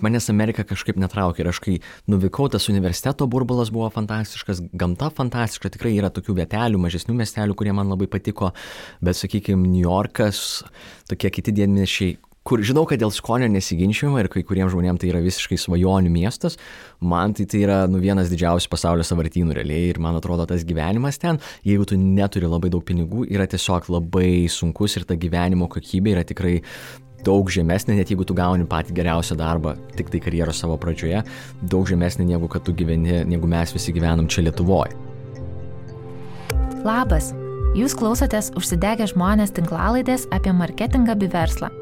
Manęs Amerika kažkaip netraukė ir aš kai nuvykau, tas universiteto burbulas buvo fantastiškas, gamta fantastiška, tikrai yra tokių vietelių, mažesnių miestelių, kurie man labai patiko, bet sakykime, New Yorkas, tokie kiti didmiesčiai, kur žinau, kad dėl skonio nesiginčiama ir kai kuriems žmonėms tai yra visiškai svajonių miestas, man tai yra vienas didžiausių pasaulio sąvartynų realiai ir man atrodo tas gyvenimas ten, jeigu tu neturi labai daug pinigų, yra tiesiog labai sunkus ir ta gyvenimo kokybė yra tikrai daug žemesnė, net jeigu tu gauni patį geriausią darbą, tik tai karjeros savo pradžioje, daug žemesnė negu kad tu gyveni, negu mes visi gyvenam čia Lietuvoje. Labas, jūs klausotės Užsidegę žmonės tinklalaidės apie marketingą bei verslą.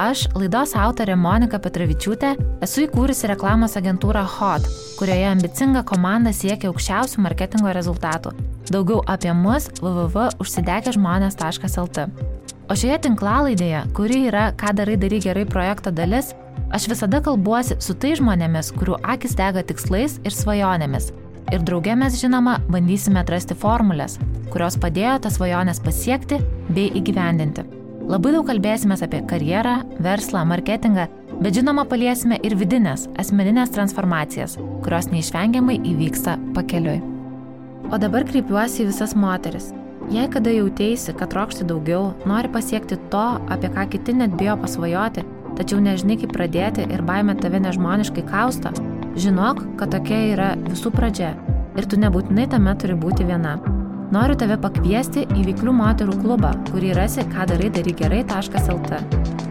Aš, laidos autorė Monika Petravičiūtė, esu įkūrusi reklamos agentūrą HOT, kurioje ambicinga komanda siekia aukščiausių marketingo rezultatų. Daugiau apie mus www.užsidegežmonės.lt. O šioje tinklalaidėje, kuri yra Ką darai gerai projekto dalis, aš visada kalbuosi su tai žmonėmis, kurių akis dega tikslais ir svajonėmis. Ir drauge mes, žinoma, bandysime atrasti formulės, kurios padėjo tas svajonės pasiekti bei įgyvendinti. Labai daug kalbėsime apie karjerą, verslą, marketingą, bet žinoma paliesime ir vidinės, asmeninės transformacijas, kurios neišvengiamai įvyksta pakeliui. O dabar kreipiuosi į visas moteris. Jei kada jautėsi, kad trokšti daugiau, nori pasiekti to, apie ką kiti net bijo pasvajoti, tačiau nežinai kaip pradėti ir baimė tave nežmoniškai kausto, žinok, kad tokia yra visų pradžia ir tu nebūtinai tame turi būti viena. Noriu tave pakviesti į Veiklių moterų klubą, kurį rasi kadarai-gerai.lt.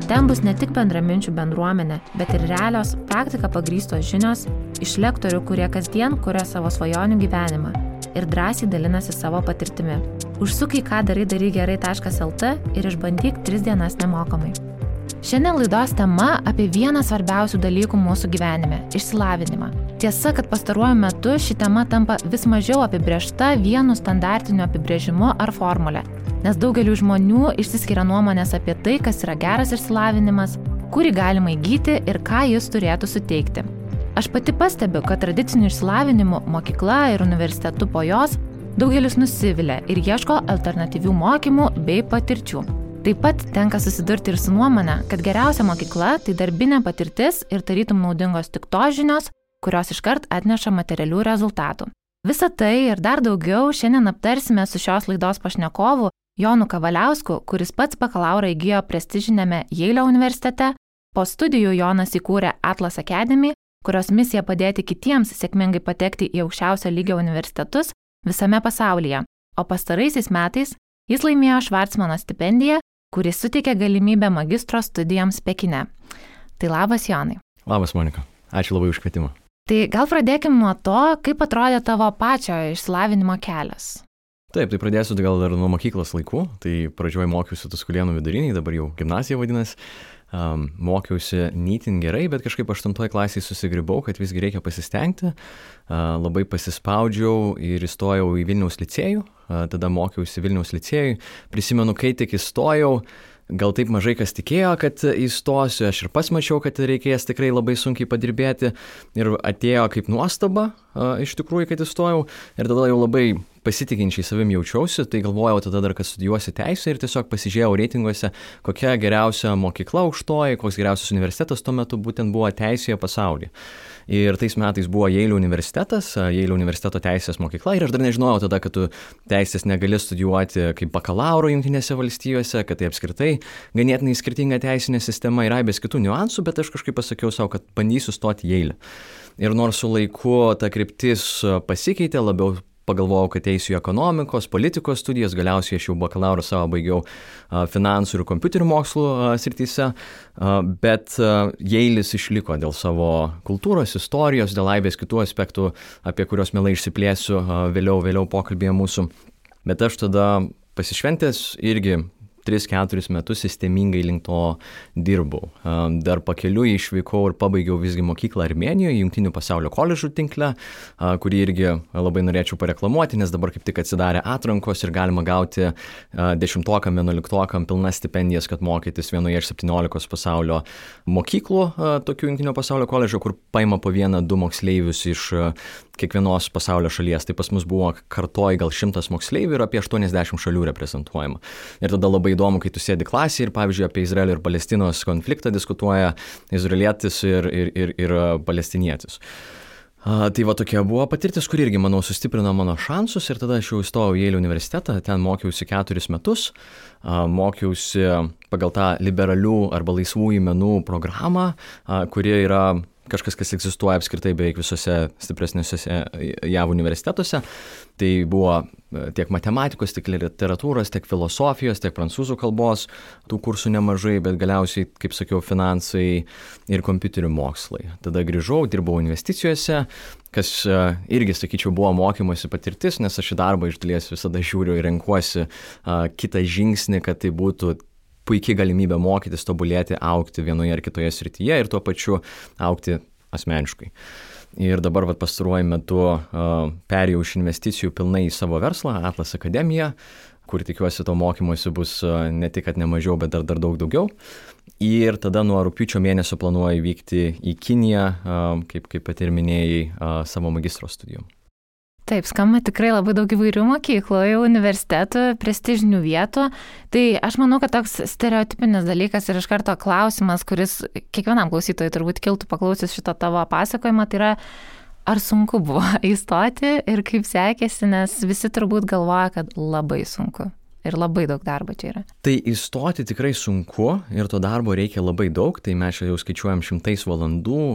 Ten bus ne tik bendraminčių bendruomenė, bet ir realios, praktika pagrįstos žinios iš lektorių, kurie kasdien kuria savo svajonių gyvenimą ir drąsiai dalinasi savo patirtimi. Užsuk į kadarai-gerai.lt ir išbandyk 3 dienas nemokamai. Šiandien laidos tema apie vieną svarbiausių dalykų mūsų gyvenime – išsilavinimą. Tiesa, kad pastaruoju metu ši tema tampa vis mažiau apibrėžta vienu standartiniu apibrėžimu ar formule, nes daugeliu žmonių išsiskiria nuomonės apie tai, kas yra geras išsilavinimas, kurį galima įgyti ir ką jis turėtų suteikti. Aš pati pastebiu, kad tradiciniu išsilavinimu mokykla ir universitetu po jos daugelis nusivilia ir ieško alternatyvių mokymų bei patirčių. Taip pat tenka susidurti ir su nuomonė, kad geriausia mokykla tai darbinė patirtis ir tarytum naudingos tik tos žinios, kurios iškart atneša materialių rezultatų. Visą tai ir dar daugiau šiandien aptarsime su šios laidos pašnekovu Jonu Kavaliausku, kuris pats bakalaurą įgijo prestižinėme Jeilio universitete. Po studijų Jonas įkūrė Atlas Academy, kurios misija padėti kitiems sėkmingai patekti į aukščiausio lygio universitetus visame pasaulyje. O pastaraisiais metais jis laimėjo Švarcmano stipendiją, kuris suteikė galimybę magistro studijoms Pekine. Tai labas, Jonai. Labas, Monika. Ačiū labai už kvietimą. Tai gal pradėkim nuo to, kaip atrodė tavo pačio išsilavinimo kelias. Taip, tai pradėsiu gal dar nuo mokyklos laikų. Tai pradžioje mokiausi Tuskulėnų viduriniai, dabar jau gimnazija vadinasi. Mokiausi nytin gerai, bet kažkaip 8 klasėje susigribau, kad visgi reikia pasistengti. Labai pasispaudžiau ir įstojau į Vilniaus licėjų. Tada mokiausi Vilniaus licėjui. Prisimenu, kai tik įstojau, gal taip mažai kas tikėjo, kad įstosiu. Aš ir pats mačiau, kad reikės tikrai labai sunkiai padirbėti. Ir atėjo kaip nuostaba, iš tikrųjų, kad įstojau. Ir tada jau labai pasitikinčiai savim jaučiausi, tai galvojau tada dar, kad studijuosiu teisę ir tiesiog pasižiūrėjau reitinguose, kokia geriausia mokykla aukštoji, koks geriausias universitetas tuo metu būtent buvo teisėje pasaulyje. Ir tais metais buvo Jeilio universitetas, Jeilio universiteto teisės mokykla ir aš dar nežinojau tada, kad tu teisės negali studijuoti kaip bakalauro Jungtinėse valstijose, kad tai apskritai ganėtinai skirtinga teisinė sistema ir aibės kitų niuansų, bet aš kažkaip pasakiau savo, kad bandysiu stoti Jeilį. Ir nors su laiku ta kryptis pasikeitė, labiau pagalvojau, kad eisiu į ekonomikos, politikos studijas, galiausiai aš jau bakalauro savo baigiau finansų ir kompiuterių mokslų srityse, bet Jeilis išliko dėl savo kultūros, istorijos, dėl aibės kitų aspektų, apie kuriuos mielai išsiplėsiu vėliau pokalbėje mūsų. Bet aš tada pasišventęs irgi 3-4 metus sistemingai link to dirbau. Dar pakeliui išvykau ir pabaigiau visgi mokyklą Armėnijoje, Jungtinių pasaulio koledžų tinkle, kurį irgi labai norėčiau pareklamuoti, nes dabar kaip tik atsidarė atrankos ir galima gauti 10-okam, 11-okam pilnas stipendijas, kad mokytis vienoje iš 17 pasaulio mokyklų, tokių Jungtinio pasaulio koledžų, kur paima po 1-2 moksleivius iš kiekvienos pasaulio šalies. Tai pas mus buvo kartoj gal 100 moksleivių ir apie 80 šalių reprezentuojama. Ir tada labai įdomu, kai tu sėdi klasėje ir, pavyzdžiui, apie Izraelio ir Palestinos konfliktą diskutuoja izraelietis ir palestinietis. Tai va tokia buvo patirtis, kuri irgi, manau, sustiprino mano šansus ir tada aš jau įstojau į Jeilio universitetą, ten mokiausi 4 metus, mokiausi pagal tą liberalių arba laisvųjų menų programą, kuri yra kažkas, kas egzistuoja apskritai beveik visose stipresniuose JAV universitetuose. Tai buvo tiek matematikos, tiek literatūros, tiek filosofijos, tiek prancūzų kalbos, tų kursų nemažai, bet galiausiai, kaip sakiau, finansai ir kompiuterių mokslai. Tada grįžau, dirbau investicijose, kas irgi, sakyčiau, buvo mokymosi patirtis, nes aš į darbą iš dalies visada žiūriu ir renkuosi kitą žingsnį, kad tai būtų puikiai galimybė mokytis, tobulėti, augti vienoje ar kitoje srityje ir tuo pačiu augti asmeniškai. Ir dabar pastaruoju metu perėjau iš investicijų pilnai į savo verslą, Atlas Akademija, kur tikiuosi to mokymosi bus ne tik, kad ne mažiau, bet dar daug daugiau. Ir tada nuo rugpjūčio mėnesio planuoju vykti į Kiniją, kaip pati ir minėjai, savo magistro studijų. Taip, skamba tikrai labai daug įvairių mokyklų, universitetų, prestižinių vietų. Tai aš manau, kad toks stereotipinis dalykas ir iš karto klausimas, kuris kiekvienam klausytojui turbūt kiltų paklausys šito tavo pasakojimą, tai yra, ar sunku buvo įstoti ir kaip sekėsi, nes visi turbūt galvoja, kad labai sunku. Ir labai daug darbo čia yra. Tai įstoti tikrai sunku ir to darbo reikia labai daug, tai mes jau skaičiuojam 100 valandų,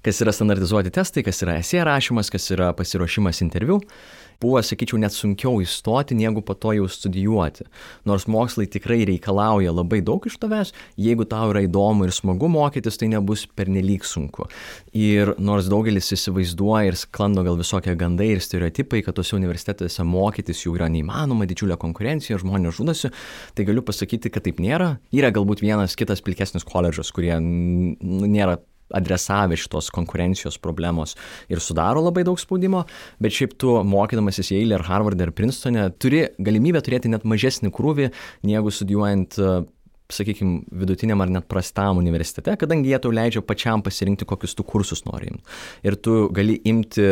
kas yra standartizuoti testai, kas yra esė rašymas, kas yra pasiruošimas interviu. Buvo, sakyčiau, net sunkiau įstoti, negu po to jau studijuoti. Nors mokslai tikrai reikalauja labai daug iš tavęs, jeigu tau yra įdomu ir smagu mokytis, tai nebus pernelyg sunku. Ir nors daugelis įsivaizduoja ir sklando gal visokie gandai ir stereotipai, kad tose universitetuose mokytis jau yra neįmanoma, didžiulė konkurencija, žmonės žudosi, tai galiu pasakyti, kad taip nėra. Yra galbūt vienas kitas pilkesnis koledžas, kurie nėra adresavę šitos konkurencijos problemos ir sudaro labai daug spaudimo, bet šiaip tu mokydamasis Yale ar Harvard ar Princetone turi galimybę turėti net mažesnį krūvį, negu studijuojant, sakykime, vidutiniam ar net prastam universitete, kadangi jie tau leidžia pačiam pasirinkti, kokius tu kursus nori imti. Ir tu gali imti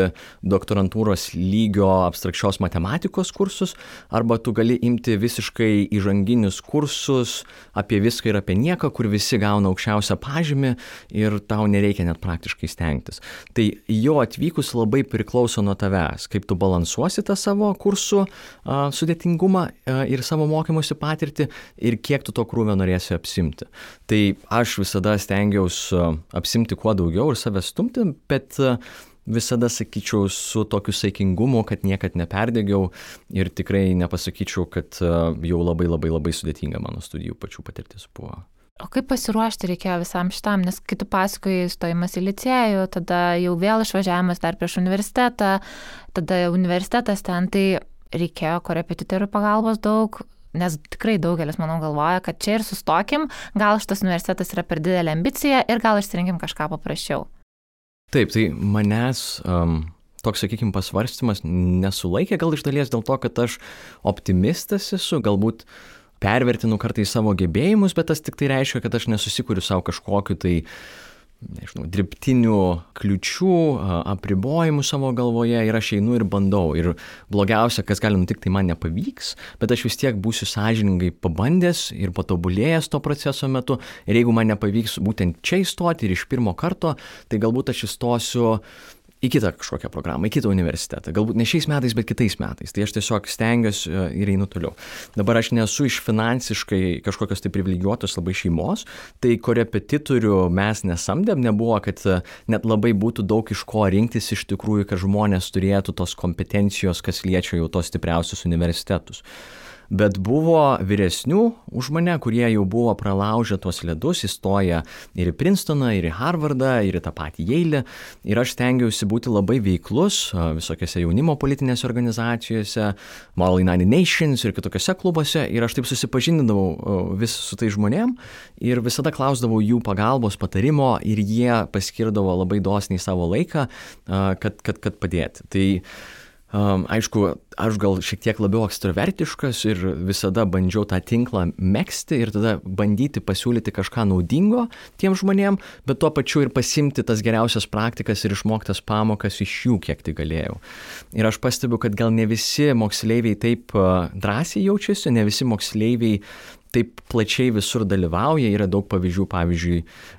doktorantūros lygio abstrakčios matematikos kursus, arba tu gali imti visiškai įžanginius kursus apie viską ir apie nieką, kur visi gauna aukščiausią pažymį ir tau nereikia net praktiškai stengtis. Tai jo atvykus labai priklauso nuo tavęs, kaip tu balansuosi tą savo kursų sudėtingumą ir savo mokymosi patirtį ir kiek tu to krūvio norėsi apsimti. Tai aš visada stengiausi apsimti kuo daugiau ir save stumti, bet visada sakyčiau su tokiu saikingumu, kad niekad neperdegiau ir tikrai nepasakyčiau, kad jau labai sudėtinga mano studijų pačių patirtis buvo. O kaip pasiruošti reikėjo visam šitam, nes kai tu pasakoji stojimas į licėjų, tada jau vėl išvažiavimas dar prieš universitetą, tada universitetas ten, tai reikėjo korepetitorių pagalbos daug, nes tikrai daugelis, manau, galvoja, kad čia ir sustokim, gal šitas universitetas yra per didelė ambicija ir gal išsirinkim kažką paprasčiau. Taip, tai manęs toks, sakykime, pasvarstymas nesulaikė, gal iš dalies dėl to, kad aš optimistas esu, galbūt pervertinu kartais savo gebėjimus, bet tas tik tai reiškia, kad aš nesusikuriu savo kažkokiu tai dirbtinių kliučių, apribojimų savo galvoje ir aš einu ir bandau. Ir blogiausia, kas gali nutikti, tai man nepavyks, bet aš vis tiek būsiu sąžiningai pabandęs ir patobulėjęs to proceso metu. Ir jeigu man nepavyks būtent čia įstoti ir iš pirmo karto, tai galbūt aš įstosiu į kitą kažkokią programą, į kitą universitetą. Galbūt ne šiais metais, bet kitais metais. Tai aš tiesiog stengiuosi ir einu toliau. Dabar aš nesu iš finansiškai kažkokios tai privilegijuotos labai šeimos, tai korepetitorių mes nesamdėm, nebuvo, kad net labai būtų daug iš ko rinktis iš tikrųjų, kad žmonės turėtų tos kompetencijos, kas liečia jau tos stipriausius universitetus. Bet buvo vyresnių už mane, kurie jau buvo pralaužę tuos ledus, įstoję ir į Princetoną, ir į Harvardą, ir į tą patį Yale. Ir aš stengiausi būti labai veiklus visokiose jaunimo politinėse organizacijose, Moral United Nations ir kitokiose klubuose. Ir aš taip susipažindavau vis su tai žmonėm ir visada klausdavau jų pagalbos, patarimo ir jie paskirdavo labai dosniai savo laiką, kad padėti. Tai Aišku, aš gal šiek tiek labiau ekstravertiškas ir visada bandžiau tą tinklą megzti ir tada bandyti pasiūlyti kažką naudingo tiem žmonėm, bet tuo pačiu ir pasimti tas geriausias praktikas ir išmoktas pamokas iš jų, kiek tai galėjau. Ir aš pastebiu, kad gal ne visi moksleiviai taip drąsiai jaučiasi, ne visi moksleiviai taip plačiai visur dalyvauja, yra daug pavyzdžių, pavyzdžiui,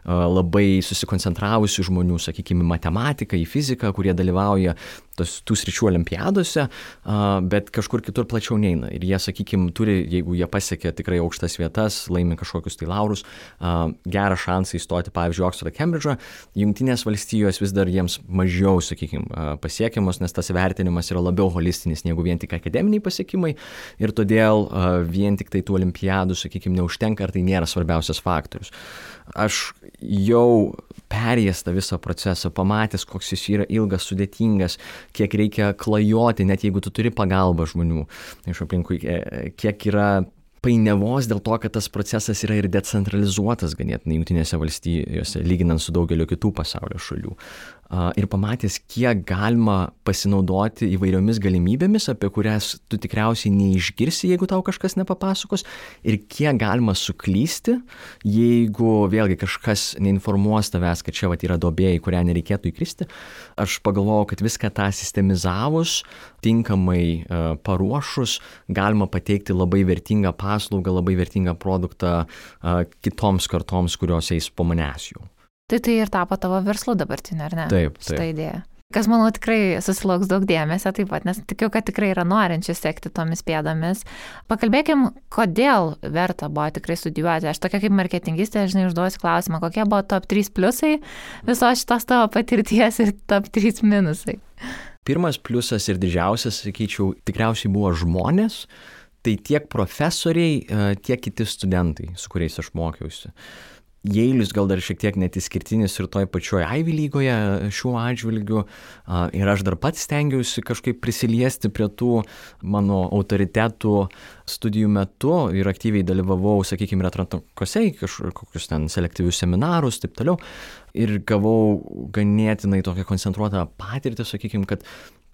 labai susikoncentravusių žmonių, sakykime, matematiką, į fiziką, kurie dalyvauja tų sričių olimpiadose, bet kažkur kitur plačiau neina. Ir jie, sakykime, turi, jeigu jie pasiekia tikrai aukštas vietas, laimi kažkokius tai laurus, gerą šansą įstoti, pavyzdžiui, Oksfordą, Kembridžą, Jungtinės valstijos vis dar jiems mažiau, sakykime, pasiekiamos, nes tas vertinimas yra labiau holistinis negu vien tik akademiniai pasiekimai ir todėl vien tik tai tų olimpiadų, sakykime, neužtenka, ar tai nėra svarbiausias faktorius. Aš jau perėjęs tą visą procesą, pamatęs, koks jis yra ilgas, sudėtingas, kiek reikia klajoti, net jeigu tu turi pagalbą žmonių iš aplinkui, kiek yra painiavos dėl to, kad tas procesas yra ir decentralizuotas ganėtinai Jungtinėse valstijose, lyginant su daugeliu kitų pasaulio šalių. Ir pamatęs, kiek galima pasinaudoti įvairiomis galimybėmis, apie kurias tu tikriausiai neišgirsi, jeigu tau kažkas nepapasakos, ir kiek galima suklysti, jeigu vėlgi kažkas neinformuos tavęs, kad čia yra duobė, į kurią nereikėtų įkristi. Aš pagalvojau, kad viską tą sistemizavus, tinkamai paruošus, galima pateikti labai vertingą paslaugą, labai vertingą produktą kitoms kartoms, kurios eis po manęs jau. Tai ir tapo tavo verslu dabartinė, ar ne? Taip. Šitą idėją. Kas, manau, tikrai susilauks daug dėmesio taip pat, nes tikiu, kad tikrai yra norinčių sekti tomis pėdomis. Pakalbėkim, kodėl verta buvo tikrai studijuoti. Aš tokia kaip marketingistė, žinai, užduosiu klausimą, kokie buvo top 3 pliusai visos šitos tavo patirties ir top 3 minusai. Pirmas pliusas ir didžiausias, sakyčiau, tikriausiai buvo žmonės, tai tiek profesoriai, tiek kiti studentai, su kuriais aš mokiausi. Jeilis gal dar šiek tiek net išskirtinis ir toj pačioj Ivy lygoje šiuo atžvilgiu ir aš dar pats stengiausi kažkaip prisiliesti prie tų mano autoritetų studijų metu ir aktyviai dalyvavau, sakykime, atrankose į kažkokius ten selektyvius seminarus, taip toliau, ir gavau ganėtinai tokią koncentruotą patirtį, sakykime, kad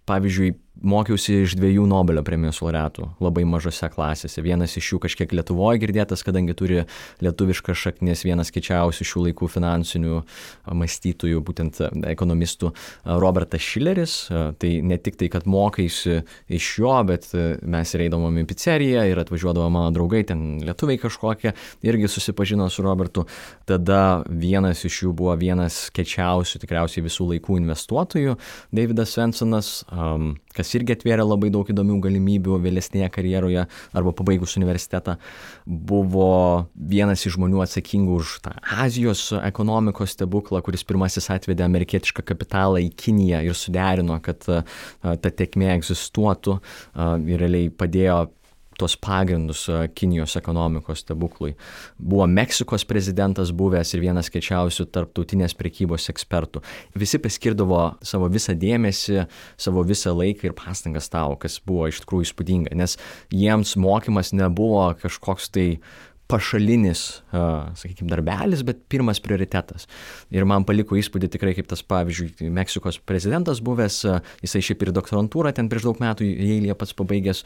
pavyzdžiui, mokiausi iš 2 Nobelio premijos laureatų labai mažose klasėse. Vienas iš jų kažkiek Lietuvoje girdėtas, kadangi turi lietuviškas šaknis, vienas kiečiausių šių laikų finansinių mąstytojų, būtent ekonomistų, Robertas Šileris. Tai ne tik tai, kad mokaisi iš jo, bet mes ir eidavom į pizzeriją ir atvažiuodavo mano draugai, ten lietuviai kažkokie, irgi susipažino su Robertu. Tada vienas iš jų buvo vienas kiečiausių tikriausiai visų laikų investuotojų, Davidas Svensonas, kas irgi atvėrė labai daug įdomių galimybių vėlesnėje karjeroje arba pabaigus universitetą, buvo vienas iš žmonių atsakingų už tą Azijos ekonomikos stebuklą, kuris pirmasis atvedė amerikietišką kapitalą į Kiniją ir suderino, kad ta tėkmė egzistuotų ir realiai padėjo tuos pagrindus Kinijos ekonomikos stebuklui. Buvo Meksikos prezidentas buvęs ir vienas kiečiausių tarptautinės prekybos ekspertų. Visi paskirdavo savo visą dėmesį, savo visą laiką ir pastangas tau, kas buvo iš tikrųjų įspūdinga, nes jiems mokymas nebuvo kažkoks tai pašalinis, sakykime, darbelis, bet pirmas prioritetas. Ir man paliko įspūdį tikrai, kaip tas, pavyzdžiui, Meksikos prezidentas buvęs, jisai šiaip ir doktorantūrą ten prieš daug metų Jeilyje pats pabaigęs,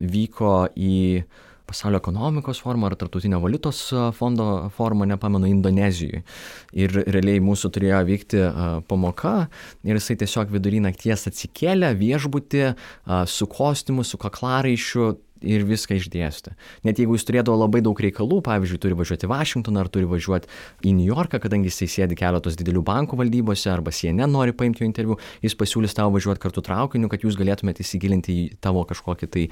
vyko į pasaulio ekonomikos formą ar tarptautinio valiutos fondo formą, nepamenu, Indonezijoje. Ir realiai mūsų turėjo vykti pamoka ir jisai tiesiog vidury nakties atsikėlė viešbutį su kostiumu, su kaklaraiščiu ir viską išdėstė. Net jeigu jis turėdavo labai daug reikalų, pavyzdžiui, turi važiuoti į Vašingtoną ar turi važiuoti į New Yorką, kadangi jisai sėdi keletos didelių bankų valdybose arba CNN nori paimti jo interviu, jis pasiūlys tau važiuoti kartu traukiniu, kad jūs galėtumėte įsigilinti į tavo kažkokį tai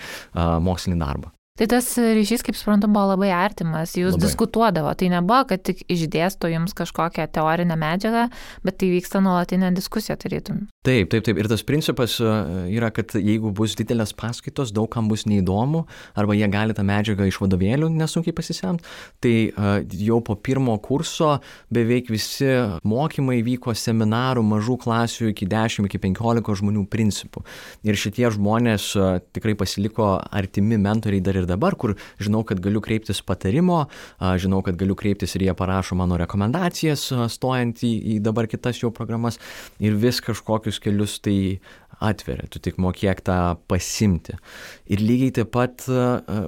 mokslinį darbą. Tai tas ryšys, kaip suprantu, buvo labai artimas, jūs diskutuodavo, tai nebuvo, kad tik išdėsto jums kažkokią teorinę medžiagą, bet tai vyksta nuolatinė diskusija, tarytum. Taip. Ir tas principas yra, kad jeigu bus didelės paskaitos, daug kam bus neįdomu, arba jie gali tą medžiagą iš vadovėlių nesunkiai pasisemti, tai jau po pirmo kurso beveik visi mokymai vyko seminarų mažų klasių iki 10, iki 15 žmonių principų. Ir šitie žmonės tikrai pasiliko artimi mentoriai dar ir dabar, kur žinau, kad galiu kreiptis patarimo, žinau, kad galiu kreiptis ir jie parašo mano rekomendacijas stojant į dabar kitas jau programas ir vis kažkokius kelius tai atveria, tu tik mokėk tą pasimti. Ir lygiai taip pat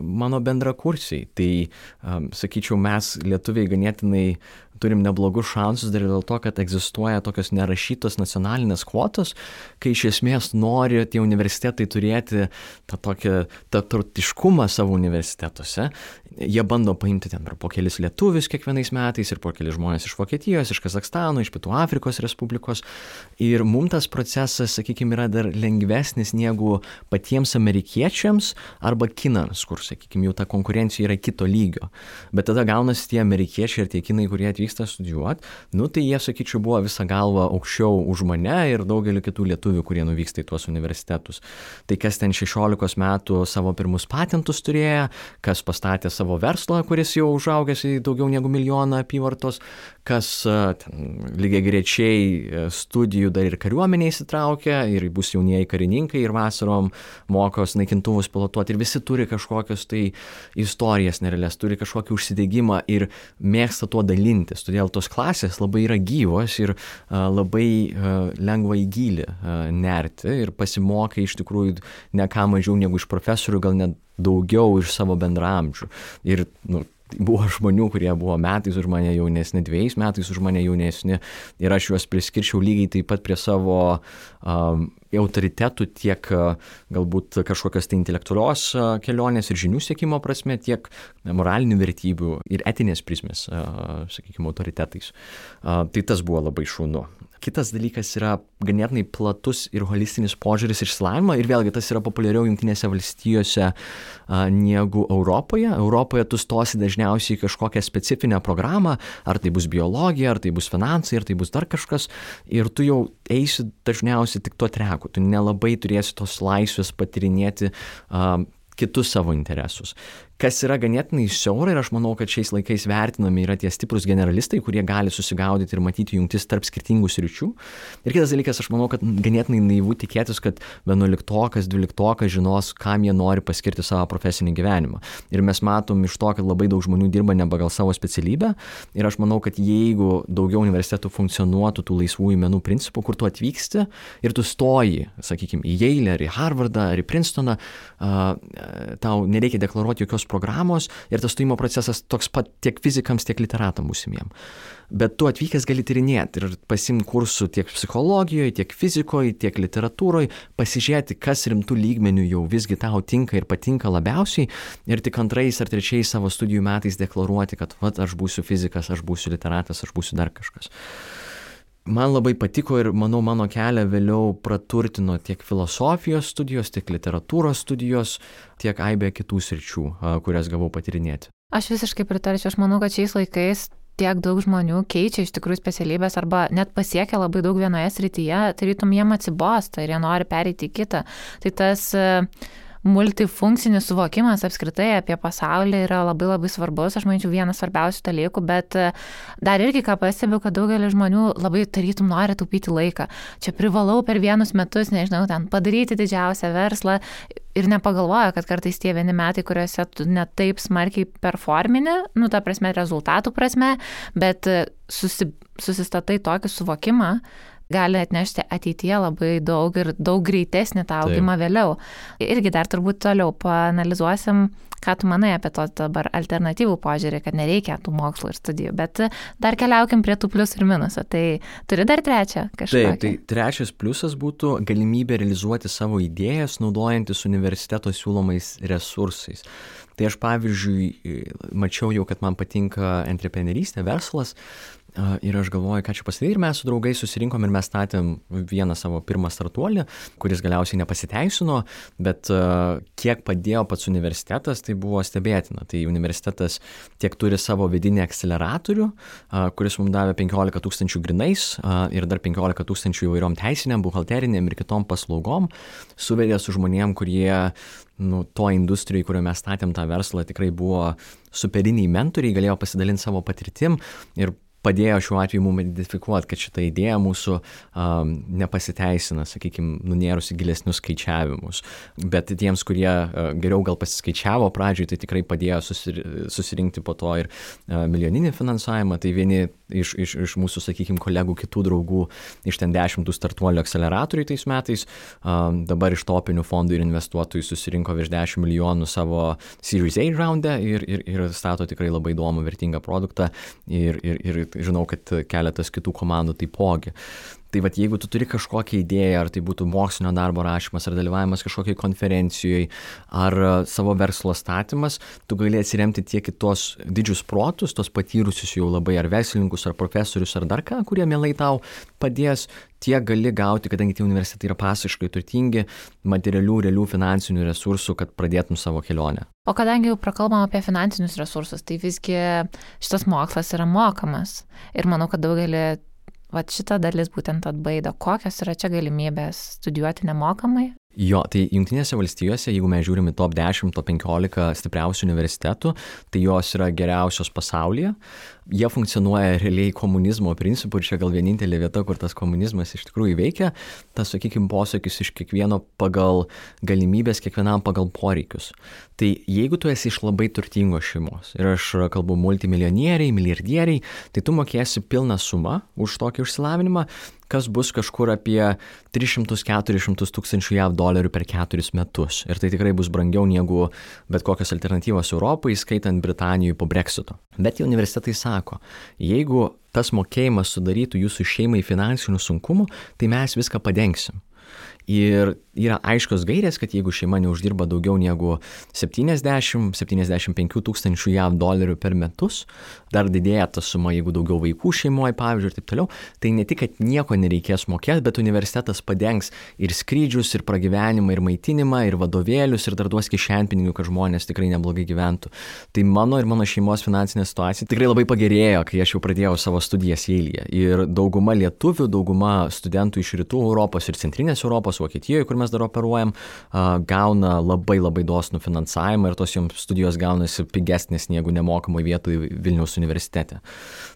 mano bendrakursiai. Tai, sakyčiau, mes lietuviai ganėtinai turim neblogus šansus dar dėl to, kad egzistuoja tokios nerašytos nacionalinės kvotos, kai iš esmės nori tie universitetai turėti tą tokį tarptautiškumą savo universitetuose. Jie bando paimti ten po kelis lietuvius kiekvienais metais ir po kelis žmonės iš Vokietijos, iš Kazakstano, iš Pietų Afrikos Respublikos. Ir mums tas procesas, sakykime, yra dar lengvesnis negu patiems amerikiečiams arba kinams, kur, sakykime, jau ta konkurencija yra kito lygio. Bet tada gaunasi tie amerikiečiai ir tie kinai, kurie atvyksta studijuoti, tai jie, sakyčiau, buvo visą galvą aukščiau už mane ir daugelį kitų lietuvių, kurie nuvyksta į tuos universitetus. Tai kas ten 16 metų savo pirmus patentus turėjo, kas pastatė savo verslą, kuris jau užaugęs į daugiau negu 1 milijoną apyvartos, kas lygiai grečiai studijų dar ir kariuomenė įsitraukia ir bus jaunieji karininkai ir vasarom mokos naikintuvus pilotuoti ir visi turi kažkokios tai istorijas nerealias, turi kažkokį užsidegimą ir mėgsta tuo dalintis. Todėl tos klasės labai yra gyvos ir labai lengva į gylį nerti ir pasimokai iš tikrųjų ne ką mažiau negu iš profesorių, gal net daugiau iš savo bendraamžių. Ir buvo žmonių, kurie buvo metais už mane jaunesni, 2 metais už mane jaunesni ir aš juos priskirčiau lygiai taip pat prie savo autoritetų tiek galbūt kažkokios tai intelektualios kelionės ir žinių siekimo prasme, tiek moralinių vertybių ir etinės prizmės, sakykime, autoritetais. Tai tas buvo labai šaunu. Kitas dalykas yra ganėtinai platus ir holistinis požiūris išsilavinimą ir vėlgi tas yra populiariau Jungtinėse valstijose negu Europoje. Europoje tu stosi dažniausiai kažkokią specifinę programą, ar tai bus biologija, ar tai bus finansai, ar tai bus dar kažkas ir tu jau eisi dažniausiai tik tuo treku. Tu nelabai turėsi tos laisvės patyrinėti kitus savo interesus. Kas yra ganėtinai siaura ir aš manau, kad šiais laikais vertinami yra tie stiprus generalistai, kurie gali susigaudyti ir matyti jungtis tarp skirtingų sričių. Ir kitas dalykas, aš manau, kad ganėtinai naivu tikėtis, kad 11-okas, 12-okas žinos, kam jie nori paskirti savo profesinį gyvenimą. Ir mes matom iš to, kad labai daug žmonių dirba ne pagal savo specialybę. Ir aš manau, kad jeigu daugiau universitetų funkcionuotų tų laisvųjų menų principų, kur tu atvyksti ir tu stoji, sakykime, į Yale, ar į Harvardą, ar į Princetoną, tau nereikia deklaruoti jokios programos ir tas stojimo procesas toks pat tiek fizikams, tiek literatam būsimiem. Bet tu atvykęs gali tyrinėti ir pasimti kursų tiek psichologijoje, tiek fizikoje, tiek literatūroje, pasižiūrėti, kas rimtų lygmenių jau visgi tau tinka ir patinka labiausiai ir tik 2 ar 3 savo studijų metais deklaruoti, kad aš būsiu fizikas, aš būsiu literatas, aš būsiu dar kažkas. Man labai patiko ir, manau, mano kelią vėliau praturtino tiek filosofijos studijos, tiek literatūros studijos, tiek aibė kitų sričių, kurias gavau patyrinėti. Aš visiškai pritarčiau, aš manau, kad šiais laikais tiek daug žmonių keičia iš tikrųjų specialybės arba net pasiekia labai daug vienoje srityje, tarytum jiem atsibosta ir jie nori pereiti į kitą. Tai tas multifunkcinis suvokimas apskritai apie pasaulį yra labai labai svarbus, aš manyčiau, vienas svarbiausių dalykų, bet dar irgi ką pastebiu, kad daugelis žmonių labai tarytum nori taupyti laiką. Čia privalau per 1 metus, nežinau, ten padaryti didžiausią verslą ir nepagalvoja, kad kartais tie 1 metai, kuriuose tu net taip smarkiai performini, ta prasme, rezultatų prasme, bet susistatai tokį suvokimą, gali atnešti ateityje labai daug ir daug greitesnį tą augimą vėliau. Irgi dar turbūt toliau paanalizuosim, ką tu manai apie to dabar alternatyvų požiūrį, kad nereikia tų mokslų ir studijų, bet dar keliaukim prie tų pliusų ir minusų. Tai turi dar 3 kažką? Taip, tai 3 pliusas būtų galimybė realizuoti savo idėjas, naudojantis universiteto siūlomais resursais. Tai aš, pavyzdžiui, mačiau jau, kad man patinka antreprenerystė, verslas, ir aš galvoju, ką čia pasidaryti, ir mes su draugais susirinkom ir mes statėm vieną savo pirmą startuolį, kuris galiausiai nepasiteisino, bet kiek padėjo pats universitetas, tai buvo stebėtina. Tai universitetas tiek turi savo vidinį akceleratorių, kuris mums davė 15 000 grinais ir dar 15 000 įvairiom teisiniam, buhalteriniam ir kitom paslaugom, suvedė su žmonėm, kurie to industrijai, kurioje mes statėm tą verslą, tikrai buvo superiniai mentoriai, galėjo pasidalinti savo patirtim ir padėjo šiuo atveju mums identifikuoti, kad šita idėja mūsų nepasiteisina, sakykime, nunėrus į gilesnius skaičiavimus. Bet tiems, kurie geriau gal pasiskaičiavo pradžioj, tai tikrai padėjo susirinkti po to ir milijoninį finansavimą. Tai vieni iš mūsų, sakykime, kolegų, kitų draugų iš ten 10 startuolių akceleratorių tais metais, dabar iš topinių fondų ir investuotojų susirinko virš 10 milijonų savo Series A raunde ir stato tikrai labai įdomų, vertingą produktą ir žinau, kad keletas kitų komandų taipogi. Tai vat, jeigu tu turi kažkokią idėją, ar tai būtų mokslinio darbo rašymas, ar dalyvavimas kažkokiai konferencijoje, ar savo verslo statymas, tu gali atsiremti tiek į tos didžius protus, tos patyrusius jau labai ar verslininkus, ar profesorius, ar dar ką, kurie mielai tau padės, tiek gali gauti, kadangi tie universitetai yra pasiškai turtingi, materialių, realių finansinių resursų, kad pradėtum savo kelionę. O kadangi jau prakalbam apie finansinius resursus, tai visgi šitas mokslas yra mokamas. Ir manau, kad daugelį šita dalis būtent atbaido. Kokios yra čia galimybės studijuoti nemokamai? Jo, tai Jungtinėse valstijose, jeigu mes žiūrime top 10, top 15 stipriausių universitetų, tai jos yra geriausios pasaulyje. Jie funkcionuoja realiai komunizmo principu ir čia gal vienintelė vieta, kur tas komunizmas iš tikrųjų veikia. Tas, sakykime, posakis iš kiekvieno pagal galimybės, kiekvienam pagal poreikius. Tai jeigu tu esi iš labai turtingos šeimos ir aš kalbu multimilijonieriai, milijardieriai, tai tu mokėsi pilną sumą už tokį išsilavinimą, kas bus kažkur apie 300-400 tūkstančių JAV dolerių per 4 metus. Ir tai tikrai bus brangiau negu bet kokios alternatyvos Europai, skaitant Britanijoje po Brexito. Bet universitetai sako, jeigu tas mokėjimas sudarytų jūsų šeimai finansinių sunkumų, tai mes viską padengsim. Ir yra aiškios gairės, kad jeigu šeima neuždirba daugiau negu 70-75 tūkstančių JAV dolerių per metus, dar didėja ta suma, jeigu daugiau vaikų šeimoje, pavyzdžiui, ir taip toliau, tai ne tik, kad nieko nereikės mokėti, bet universitetas padengs ir skrydžius, ir pragyvenimą, ir maitinimą, ir vadovėlius, ir dar duos kišenpinigių, kad žmonės tikrai neblogai gyventų. Tai mano ir mano šeimos finansinė situacija tikrai labai pagerėjo, kai aš jau pradėjau savo studijas Yale'yje. Ir dauguma lietuvių, dauguma studentų iš rytų Europos ir centrinės Europos, Vokietijoje, kur mes dar operuojam, gauna labai dosnų finansavimą ir tos joms studijos gaunasi pigesnės negu nemokamai vietoje Vilniaus universitete.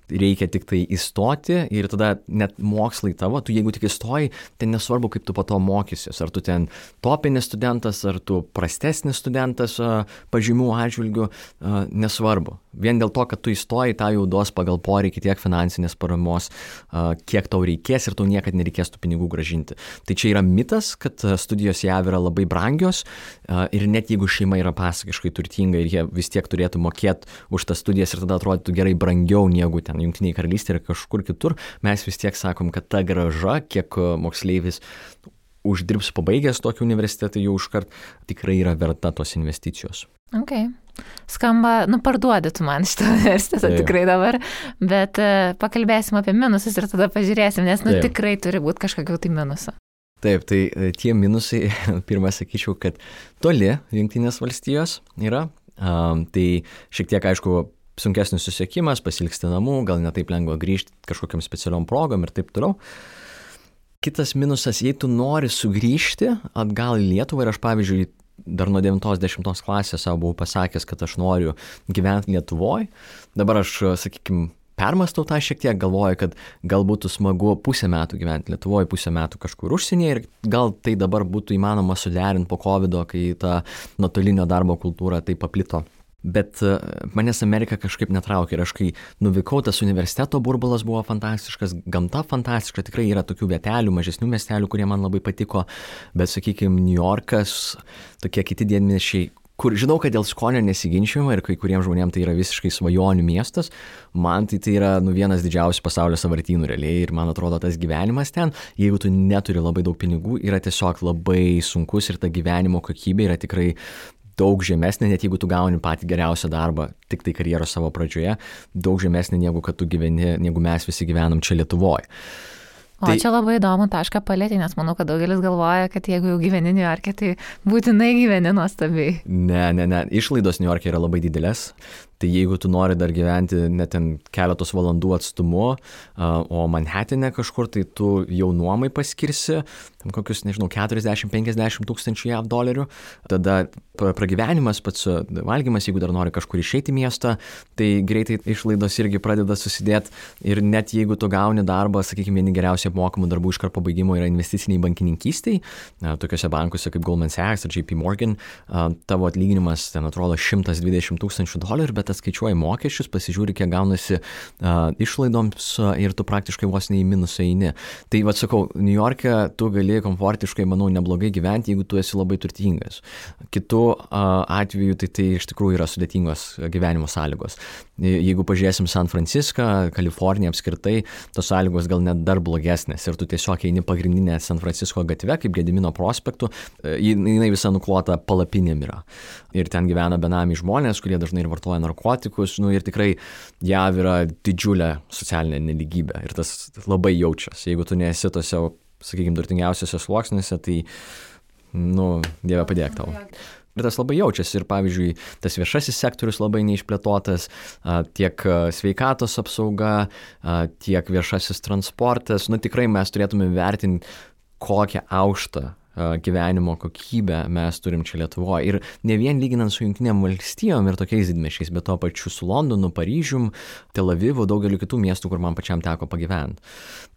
Reikia tik tai įstoti ir tada net mokslai tavo, tu jeigu tik įstoji, tai nesvarbu, kaip tu po to mokysies. Ar tu ten topinis studentas, ar tu prastesnis studentas pažymių atžvilgių, nesvarbu. Vien dėl to, kad tu įstoji, tą jau duos pagal poreikį tiek finansinės paramos, kiek tau reikės ir tau niekad nereikės tų pinigų gražinti. Tai čia yra mitas, kad studijos JAV yra labai brangios ir net jeigu šeima yra pasakiškai turtinga ir jie vis tiek turėtų mokėti už tas studijas ir tada atrodytų gerai brangiau negu ten Jungtinėje karalystėje ir kažkur kitur, mes vis tiek sakom, kad ta grąža, kiek moksleivis uždirbs pabaigęs tokį universitetą, jau iškart tikrai yra verta tos investicijos. Ok. Skamba, parduodi tu man šitą universitetą tikrai dabar, bet pakalbėsim apie minusus ir tada pažiūrėsim, nes tikrai turi būti kažkokių tai minusų. Taip, tai tie minusai, pirmą sakyčiau, kad toli Jungtinės valstijos yra, tai šiek tiek, aišku, sunkesnis susiekimas, pasilgsti namų, gal ne taip lengva grįžti kažkokiam specialiom progom ir taip toliau. Kitas minusas, jei tu nori sugrįžti atgal į Lietuvą ir aš, pavyzdžiui, dar nuo 9-10 klasės savo buvau pasakęs, kad aš noriu gyventi Lietuvoje. Dabar aš, sakykime, permastau tą šiek tiek, galvoju, kad gal būtų smagu pusę metų gyventi Lietuvoje, pusę metų kažkur užsienyje ir gal tai dabar būtų įmanoma suderinti po COVID-o, kai ta nuotolinio darbo kultūra taip paplito. Bet manęs Amerika kažkaip netraukė ir aš kai nuvykau, tas universiteto burbulas buvo fantastiškas, gamta fantastiška, tikrai yra tokių vietelių, mažesnių miestelių, kurie man labai patiko, bet, sakykime, New Yorkas, tokie kiti didmiesčiai, kur žinau, kad dėl skonio nesiginčiama ir kai kuriems žmonėms tai yra visiškai svajonių miestas, man tai yra vienas didžiausių pasaulio sąvartynų realiai ir man atrodo tas gyvenimas ten, jeigu tu neturi labai daug pinigų, yra tiesiog labai sunkus ir ta gyvenimo kokybė yra tikrai daug žemesnė, net jeigu tu gauni patį geriausią darbą tik tai karjeros savo pradžioje, daug žemesnė negu kad tu gyveni, negu mes visi gyvenam čia Lietuvoje. O čia labai įdomu tašką palėtį, nes manau, kad daugelis galvoja, kad jeigu jau gyveni New York'e, tai būtinai gyveni nuostabiai. Ne. Išlaidos New York'e yra labai didelės. Tai jeigu tu nori dar gyventi net ten keletos valandų atstumu, o Manhattane kažkur, tai tu jau nuomai paskirsi kokius, nežinau, 40-50 tūkstančių JAV dolerių. Tada pragyvenimas, pats valgymas, jeigu dar nori kažkur išeiti į miestą, tai greitai išlaidos irgi pradeda susidėti. Ir net jeigu tu gauni darbą, sakykime, vieni geriausiai apmokamų darbų iškart po baigimo yra investiciniai bankininkystėj, tokiuose bankuose kaip Goldman Sachs ar JP Morgan, tavo atlyginimas ten atrodo 120 tūkstančių dolerių, bet atskaičiuoji mokesčius, pasižiūri, kiek gaunasi išlaidoms ir tu praktiškai vos ne į minusą eini. Tai vad sakau, Niujorke tu gali komfortiškai, manau, neblogai gyventi, jeigu tu esi labai turtingas. Kitu atveju tai iš tikrųjų yra sudėtingos gyvenimo sąlygos. Jeigu pažiūrėsim San Franciską, Kaliforniją apskritai, tos sąlygos gal net dar blogesnės ir tu tiesiog eini pagrindinę San Francisco gatve, kaip Gedimino prospektu, jinai visa nuklota palapinėm yra. Ir ten gyvena benamiai žmonės, kurie dažnai ir vartoja narkotikus, ir tikrai JAV yra didžiulė socialinė nelygybė ir tas labai jaučiasi. Jeigu tu nesi tose, sakykime, turtingiausiose sluoksniuose, tai, Dieve padėk tau. Ir tas labai jaučiasi ir, pavyzdžiui, tas viešasis sektorius labai neišplėtotas, tiek sveikatos apsauga, tiek viešasis transportas. Tikrai mes turėtume vertinti, kokią aukštą gyvenimo kokybę mes turim čia Lietuvoje. Ir ne vien lyginant su Jungtinėm valstijom ir tokiais didmiesčiais, bet to pačiu su Londonu, Paryžium, Tel Avivu, daugeliu kitų miestų, kur man pačiam teko pagyventi.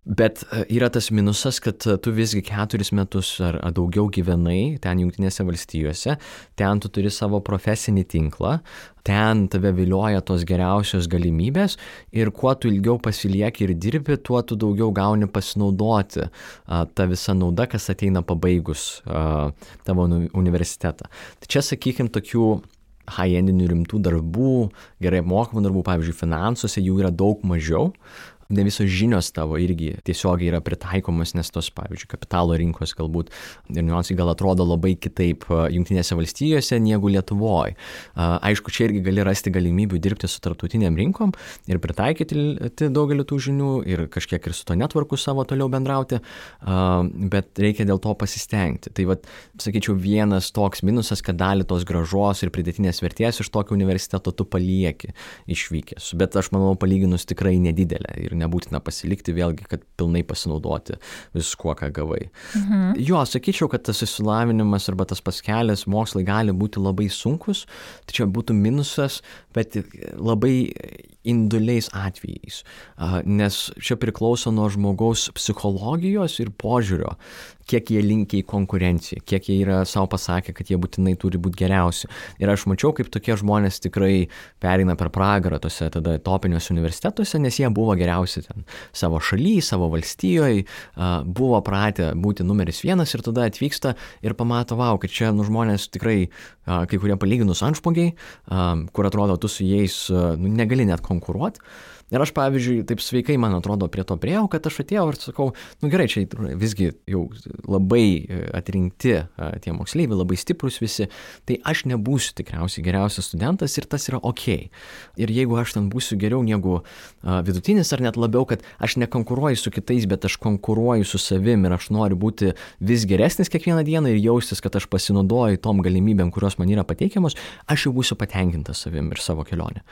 Bet yra tas minusas, kad tu visgi 4 metus ar daugiau gyvenai ten Jungtinėse valstijose, ten tu turi savo profesinį tinklą, ten tave vilioja tos geriausios galimybės ir kuo tu ilgiau pasilieki ir dirbi, tuo tu daugiau gauni pasinaudoti tą visą naudą, kas ateina pabaigus tavo universitetą. Tai čia, sakykime, tokių high-endinių rimtų darbų, gerai apmokamų darbų, pavyzdžiui, finansuose jų yra daug mažiau. Ne visos žinios tavo irgi tiesiogiai yra pritaikomos, nes tos, pavyzdžiui, kapitalo rinkos galbūt ir niuansai gal atrodo labai kitaip Jungtinėse valstijose negu Lietuvoje. Aišku, čia irgi gali rasti galimybių dirbti su tarptautiniam rinkom ir pritaikyti daugelį tų žinių ir kažkiek ir su to networku savo toliau bendrauti, bet reikia dėl to pasistengti. Tai vat, sakyčiau, vienas toks minusas, kad dalį tos grąžos ir pridėtinės vertės iš tokio universiteto tu palieki išvykęs. Bet aš manau, palyginus tikrai nedidelė ir nebūtina pasilikti vėlgi, kad pilnai pasinaudoti viskuo, ką gavai. Jo, sakyčiau, kad tas išsilavinimas arba tas pats kelias, mokslai gali būti labai sunkus, tai čia būtų minusas, bet labai individualiais atvejais, nes čia priklauso nuo žmogaus psichologijos ir požiūrio, kiek jie linkia į konkurenciją, kiek jie yra savo pasakę, kad jie būtinai turi būti geriausi. Ir aš mačiau, kaip tokie žmonės tikrai pereina per pragarą tose tada topiniuose universitetuose, nes jie buvo geriausi ten savo šalyje, savo valstijoje, buvo pratę būti numeris 1 ir tada atvyksta ir pamato, kad čia žmonės tikrai kai kurie palyginus antžmogiai, kur atrodo tu su jais negali net konkuruoti. Ir aš, pavyzdžiui, taip sveikai, man atrodo, prie to priejau, kad aš atėjau ir sakau, gerai, čia visgi jau labai atrinkti tie moksleiviai, labai stiprus visi, tai aš nebūsiu tikriausiai geriausias studentas ir tas yra ok. Ir jeigu aš ten būsiu geriau negu vidutinis ar net labiau, kad aš nekonkuruoju su kitais, bet aš konkuruoju su savim ir aš noriu būti vis geresnis kiekvieną dieną ir jaustis, kad aš pasinaudoju tom galimybėm, kurios man yra pateikiamos, aš jau būsiu patenkintas savim ir savo kelionę.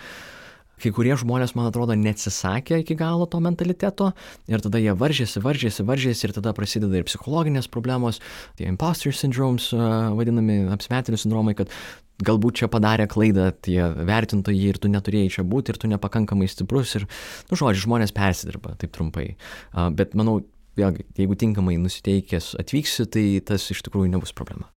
Kai kurie žmonės, man atrodo, neatsisakė iki galo to mentaliteto ir tada jie varžėsi ir tada prasideda ir psichologinės problemos, tie imposter syndromes, vadinami apsimetėlių sindromai, kad galbūt čia padarė klaidą tie vertintojai ir tu neturėjai čia būti ir tu nepakankamai stiprus ir, žodžiu, žmonės persidirba, taip trumpai. Bet manau, vėlgi, jeigu tinkamai nusiteikęs atvyksi, tai tas iš tikrųjų nebus problema.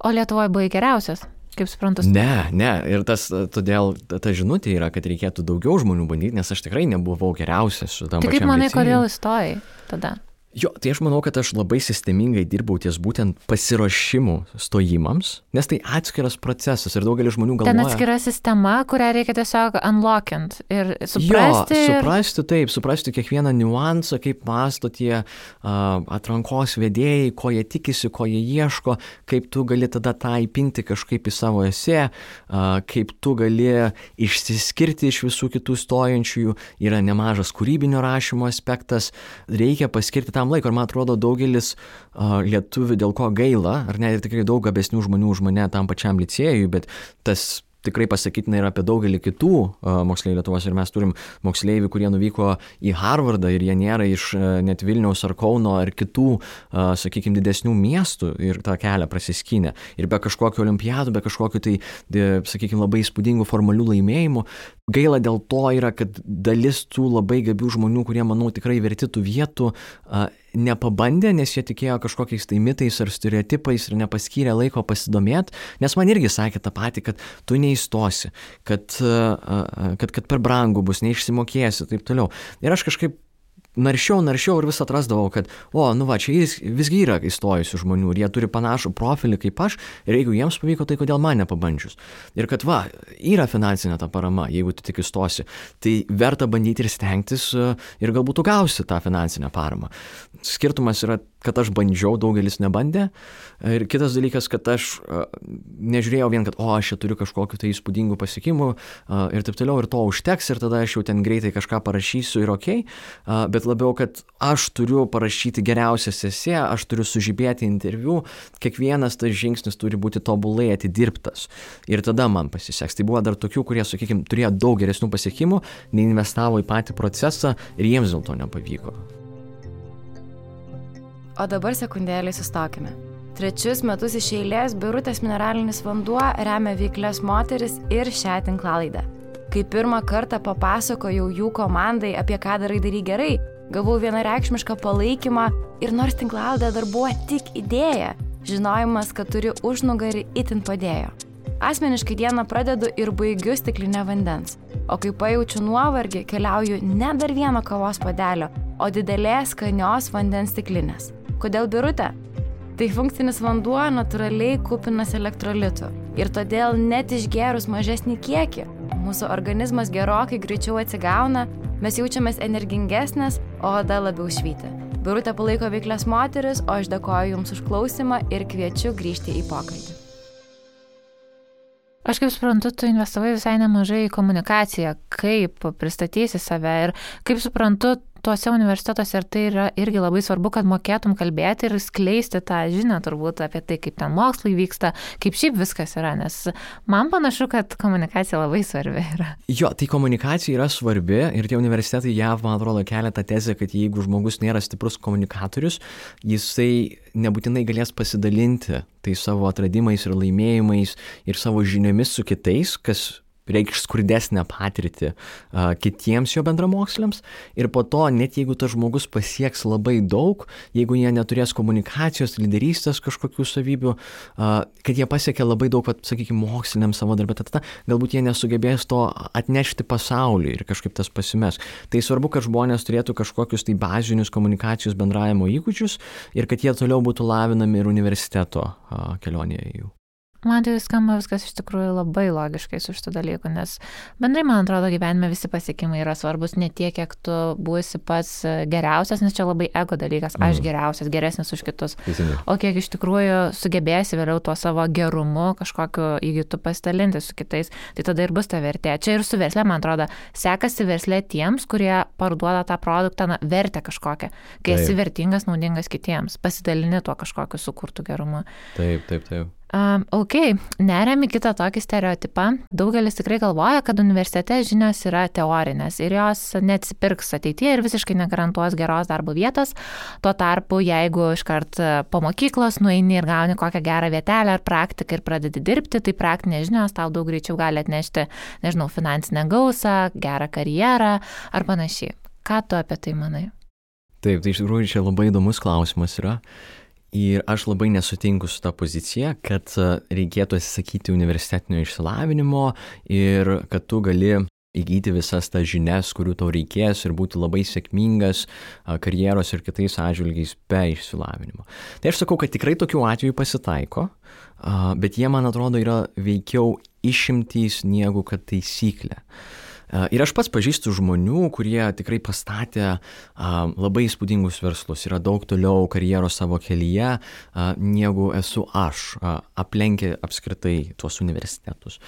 O Lietuvoje buvai geriausias? Kaip suprantu? Ne, ir todėl ta žinutė yra, kad reikėtų daugiau žmonių bandyti, nes aš tikrai nebuvau geriausias šitam pačiam licėjui. Tai kaip manai, kodėl įstojai tada? Jo, tai aš manau, kad aš labai sistemingai dirbau ties būtent pasiruošimu stojimams, nes tai atskiras procesas ir daugelis žmonių galvoja... Ten atskira sistema, kurią reikia tiesiog unlockint ir suprasti... Jo, suprasti kiekvieną niuansą, kaip mąsto tie atrankos vedėjai, ko jie tikisi, ko jie ieško, kaip tu gali tada tą įpinti kažkaip į savo esė, kaip tu gali išsiskirti iš visų kitų stojančiųjų, yra nemažas kūrybinio rašymo aspektas, reikia paskirti tam laiko ir man atrodo daugelis lietuvių dėl ko gaila, ar ne, ir tikrai daug gabesnių žmonių už mane tam pačiam licėjui, bet tas tikrai pasakytina ir apie daugelį kitų moksleivių Lietuvos. Ir mes turim moksleivių, kurie nuvyko į Harvardą ir jie nėra iš net Vilniaus ar Kauno ar kitų, sakykime, didesnių miestų ir tą kelią prasiskynė. Ir be kažkokių olimpiadų, be kažkokių tai, sakykime, labai įspūdingų formalių laimėjimų. Gaila dėl to yra, kad dalis tų labai gabių žmonių, kurie, manau, tikrai verti tų vietų, nepabandė, nes jie tikėjo kažkokiais tai mitais ar stereotipais ir nepaskyrė laiko pasidomėti, nes man irgi sakė tą patį, kad tu neįstosi, kad per brangu bus, neišsimokėsi, taip toliau. Ir aš kažkaip naršiau ir vis atrasdavau, kad, čia visgi yra įstojusių žmonių ir jie turi panašų profilį kaip aš ir jeigu jiems pavyko, tai kodėl man nepabandžius. Ir kad yra finansinė ta parama, jeigu tu tik įstosi, tai verta bandyti ir stengtis ir galbūt tu gausi tą finansinę paramą. Skirtumas yra, kad aš bandžiau, daugelis nebandė. Ir kitas dalykas, kad aš nežiūrėjau vien, kad aš čia turiu kažkokiu tai įspūdingų pasiekimų ir taip toliau, ir to užteks, ir tada aš jau ten greitai kažką parašysiu ir okei, bet labiau, kad aš turiu parašyti geriausią esė, aš turiu sužibėti interviu, kiekvienas tas žingsnis turi būti tobulai atidirbtas. Ir tada man pasiseks. Tai buvo dar tokių, kurie, sakykime, turėjo daug geresnių pasiekimų, neinvestavo į patį procesą ir jiems dėl to nepavyko. O dabar sekundėlį sustokime. 3 metus iš eilės Birutės mineralinis vanduo remia veiklias moteris ir šią tinklalaidę. Kai pirmą kartą papasakojau jų komandai, apie ką darai gerai, gavau vienareikšmišką palaikymą ir nors tinklalaidė dar buvo tik idėja, žinojimas, kad turi užnugarį, itin padėjo. Asmeniškai dieną pradedu ir baigiu stiklinę vandens, o kai pajaučiu nuovargį, keliauju ne dar vieno kavos puodelio, o didelės skanios vandens stiklinės. Kodėl Birutė? Tai funkcinis vanduo natūraliai kupinas elektrolitų ir todėl net išgėrus mažesnį kiekį, mūsų organizmas gerokai greičiau atsigauna, mes jaučiamės energingesnės, o oda labiau švyti. Birutė palaiko veiklias moteris, o aš dėkoju Jums už klausimą ir kviečiu grįžti į pokalbį. Aš kaip suprantu, tu investavai visai nemažai į komunikaciją, kaip pristatysi save ir kaip suprantu, tuose universitetuose ir tai yra irgi labai svarbu, kad mokėtum kalbėti ir skleisti tą žinią turbūt apie tai, kaip ten mokslai vyksta, kaip šiaip viskas yra, nes man panašu, kad komunikacija labai svarbi yra. Jo, tai komunikacija yra svarbi ir tie universitetai JAV, man atrodo, kelia tą tezę, kad jeigu žmogus nėra stiprus komunikatorius, jisai nebūtinai galės pasidalinti tai savo atradimais ir laimėjimais ir savo žiniomis su kitais, kas reikš skurdesnę patirtį kitiems jo bendramoksliams ir po to, net jeigu tas žmogus pasieks labai daug, jeigu jie neturės komunikacijos, lyderystės kažkokių savybių, kad jie pasiekia labai daug, sakykime, moksliniam savo darbę, tada galbūt jie nesugebės to atnešti pasauliui ir kažkaip tas pasimes. Tai svarbu, kad žmonės turėtų kažkokius tai bazinius komunikacijos bendravimo įgūdžius ir kad jie toliau būtų lavinami ir universiteto kelionėje jų. Man tai skamba viskas iš tikrųjų labai logiškai su šitų dalykų, nes bendrai, man atrodo, gyvenime visi pasiekimai yra svarbus ne tiek, kiek tu būsi pats geriausias, nes čia labai ego dalykas, aš geriausias, geresnis už kitus, o kiek iš tikrųjų sugebėsi vėliau tuo savo gerumu kažkokiu įgytu pasidalinti su kitais, tai tada ir bus ta vertė. Čia ir su versle, man atrodo, sekasi versle tiems, kurie parduoda tą produktą, vertę kažkokią, kai esi vertingas, naudingas kitiems, pasidalini tuo kažkokiu sukurtų gerumu. Taip. Ok, neriam į kitą tokį stereotipą. Daugelis tikrai galvoja, kad universitete žinios yra teorinės ir jos neatsipirks ateityje ir visiškai negarantuos geros darbo vietos. Tuo tarpu, jeigu iškart po mokyklos nueini ir gauni kokią gerą vietelę ar praktiką ir pradedi dirbti, tai praktinės žinios tau daug greičiau gali atnešti, finansinę gausą, gerą karjerą ar panašiai. Ką tu apie tai manai? Taip, tai iš tikrųjų čia labai įdomus klausimas yra. Ir aš labai nesutinku su ta pozicija, kad reikėtų atsisakyti universitetinio išsilavinimo ir kad tu gali įgyti visas tas žinias, kurių tau reikės ir būti labai sėkmingas karjeros ir kitais atžvilgiais be išsilavinimo. Tai aš sakau, kad tikrai tokių atvejų pasitaiko, bet jie, man atrodo, yra veikiau išimtys negu kad taisyklė. Ir aš pats pažįstu žmonių, kurie tikrai pastatė labai įspūdingus verslus, yra daug toliau karjeros savo kelyje, negu esu aš, aplenkę apskritai tuos universitetus.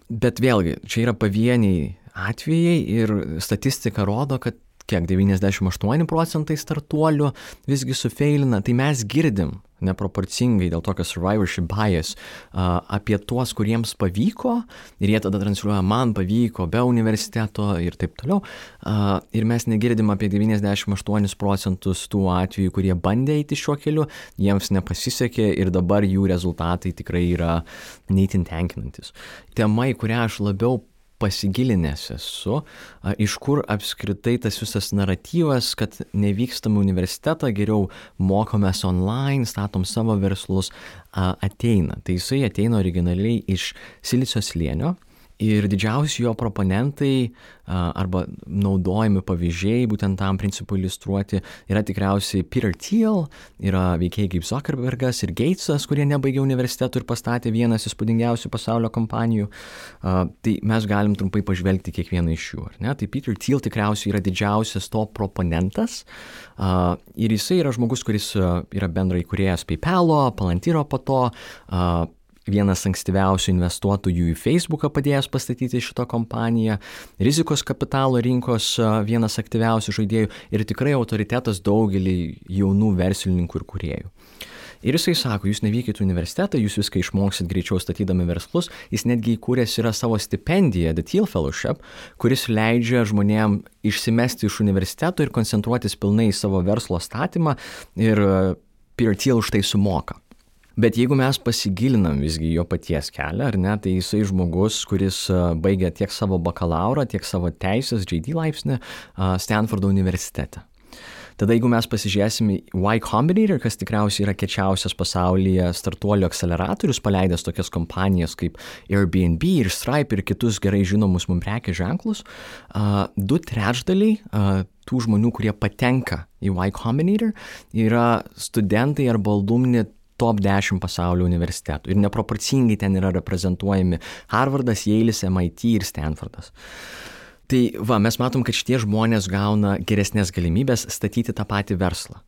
Bet vėlgi, čia yra pavieniai atvejai ir statistika rodo, kad 98% startuolių visgi sufeilina, tai mes girdim neproporcingai dėl tokio survivorship bias apie tuos, kuriems pavyko ir jie tada transliuoja, man pavyko be universiteto ir taip toliau. Ir mes negirdim apie 98% tų atvejų, kurie bandė eiti šiuo keliu, jiems nepasisekė ir dabar jų rezultatai tikrai yra neįtin tenkinantis. Tema, į kurią aš labiau pasigilinęs esu, iš kur apskritai tas visas naratyvas, kad nevykstam į universitetą, geriau mokomės online, statom savo verslus, ateina. Tai jisai ateina originaliai iš Silicio slėnio ir didžiausi jo proponentai arba naudojami pavyzdžiai būtent tam principui iliustruoti yra tikriausiai Peter Thiel, yra veikėjai kaip Zuckerbergas ir Gatesas, kurie nebaigė universitetų ir pastatė vienas įspūdingiausių pasaulio kompanijų. Tai mes galim trumpai pažvelgti kiekvieną iš jų, ar ne? Tai Peter Thiel tikriausiai yra didžiausias to proponentas ir jisai yra žmogus, kuris yra bendrai įkūrėjas PayPal'o, Palantyro po to, vienas ankstyviausių investuotojų į Facebooką padėjęs pastatyti šitą kompaniją, rizikos kapitalo rinkos vienas aktyviausių žaidėjų ir tikrai autoritetas daugelį jaunų verslininkų ir kūrėjų. Ir jisai sako, jūs nevykit į universitetą, jūs viską išmoksit greičiau statydami verslus, jis netgi įkūręs yra savo stipendiją, The Thiel Fellowship, kuris leidžia žmonėm išsimesti iš universiteto ir koncentruotis pilnai į savo verslo statymą ir Peter Thiel už tai sumoka. Bet jeigu mes pasigilinam visgi jo paties kelią, ar ne, tai jisai žmogus, kuris baigė tiek savo bakalaurą, tiek savo teisės JD laipsnį Stanfordo universitete. Tada jeigu mes pasižiūrėsim į Y Combinator, kas tikriausiai yra kečiausias pasaulyje startuolių akceleratorius, paleidęs tokias kompanijas kaip Airbnb ir Stripe ir kitus gerai žinomus mums prekės ženklus, 2/3 tų žmonių, kurie patenka į Y Combinator, yra studentai arba alumni top 10 pasaulio universitetų. Ir neproporcingai ten yra reprezentuojami Harvardas, Yale'is, MIT ir Stanfordas. Tai mes matom, kad šitie žmonės gauna geresnės galimybės statyti tą patį verslą.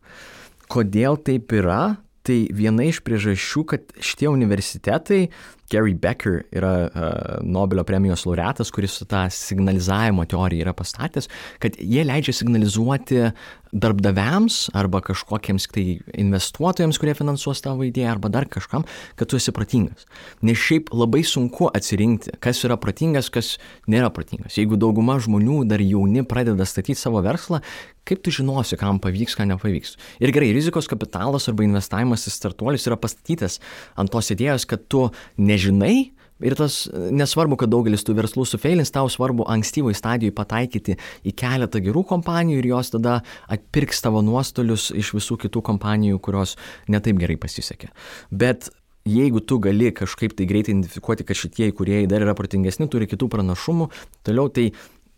Kodėl taip yra? Tai viena iš priežasčių, kad šitie universitetai, Gary Becker yra Nobelio premijos laureatas, kuris tą signalizavimo teoriją yra pastatęs, kad jie leidžia signalizuoti darbdaviams arba kažkokiems tai investuotojams, kurie finansuos tavo idėją arba dar kažkam, kad tu esi protingas. Nes šiaip labai sunku atsirinkti, kas yra protingas, kas nėra protingas. Jeigu dauguma žmonių dar jauni pradeda statyti savo verslą, kaip tu žinosi, kam pavyks, ką nepavyks. Ir gerai, rizikos kapitalas arba investavimas į startuolius yra pastatytas ant tos idėjos, kad tu nežinai, ir tas nesvarbu, kad daugelis tų verslų sufeilins, tau svarbu ankstyvoj stadijoj pataikyti į keletą gerų kompanijų ir jos tada atpirks tavo nuostolius iš visų kitų kompanijų, kurios netaip gerai pasisekė. Bet jeigu tu gali kažkaip tai greitai identifikuoti, kad šitie įkūrėjai dar yra protingesni, turi kitų pranašumų, toliau tai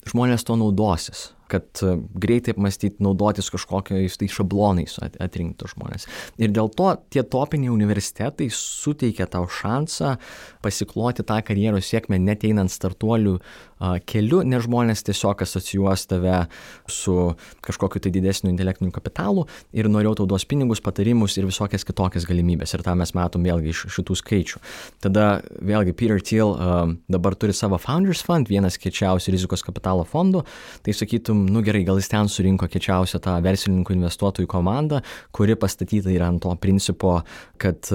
žmonės to naudosis, kad greitai apmastyti, naudotis kažkokiais tai šablonais atrinkti žmonės. Ir dėl to tie topiniai universitetai suteikia tau šansą pasikloti tą karjeros sėkmę net einant startuolių keliu, nes žmonės tiesiog asocijuos tave su kažkokiu tai didesniu intelektiniu kapitalu ir noriau tau duos pinigus, patarimus ir visokias kitokias galimybės. Ir tą mes matom vėlgi iš šitų skaičių. Tada vėlgi Peter Thiel dabar turi savo Founders Fund, vienas kečiausių rizikos kapitalo fondų, tai sakytum, gerai, gal jis ten surinko kečiausią tą verslininkų investuotojų komandą, kuri pastatyta yra ant to principo, kad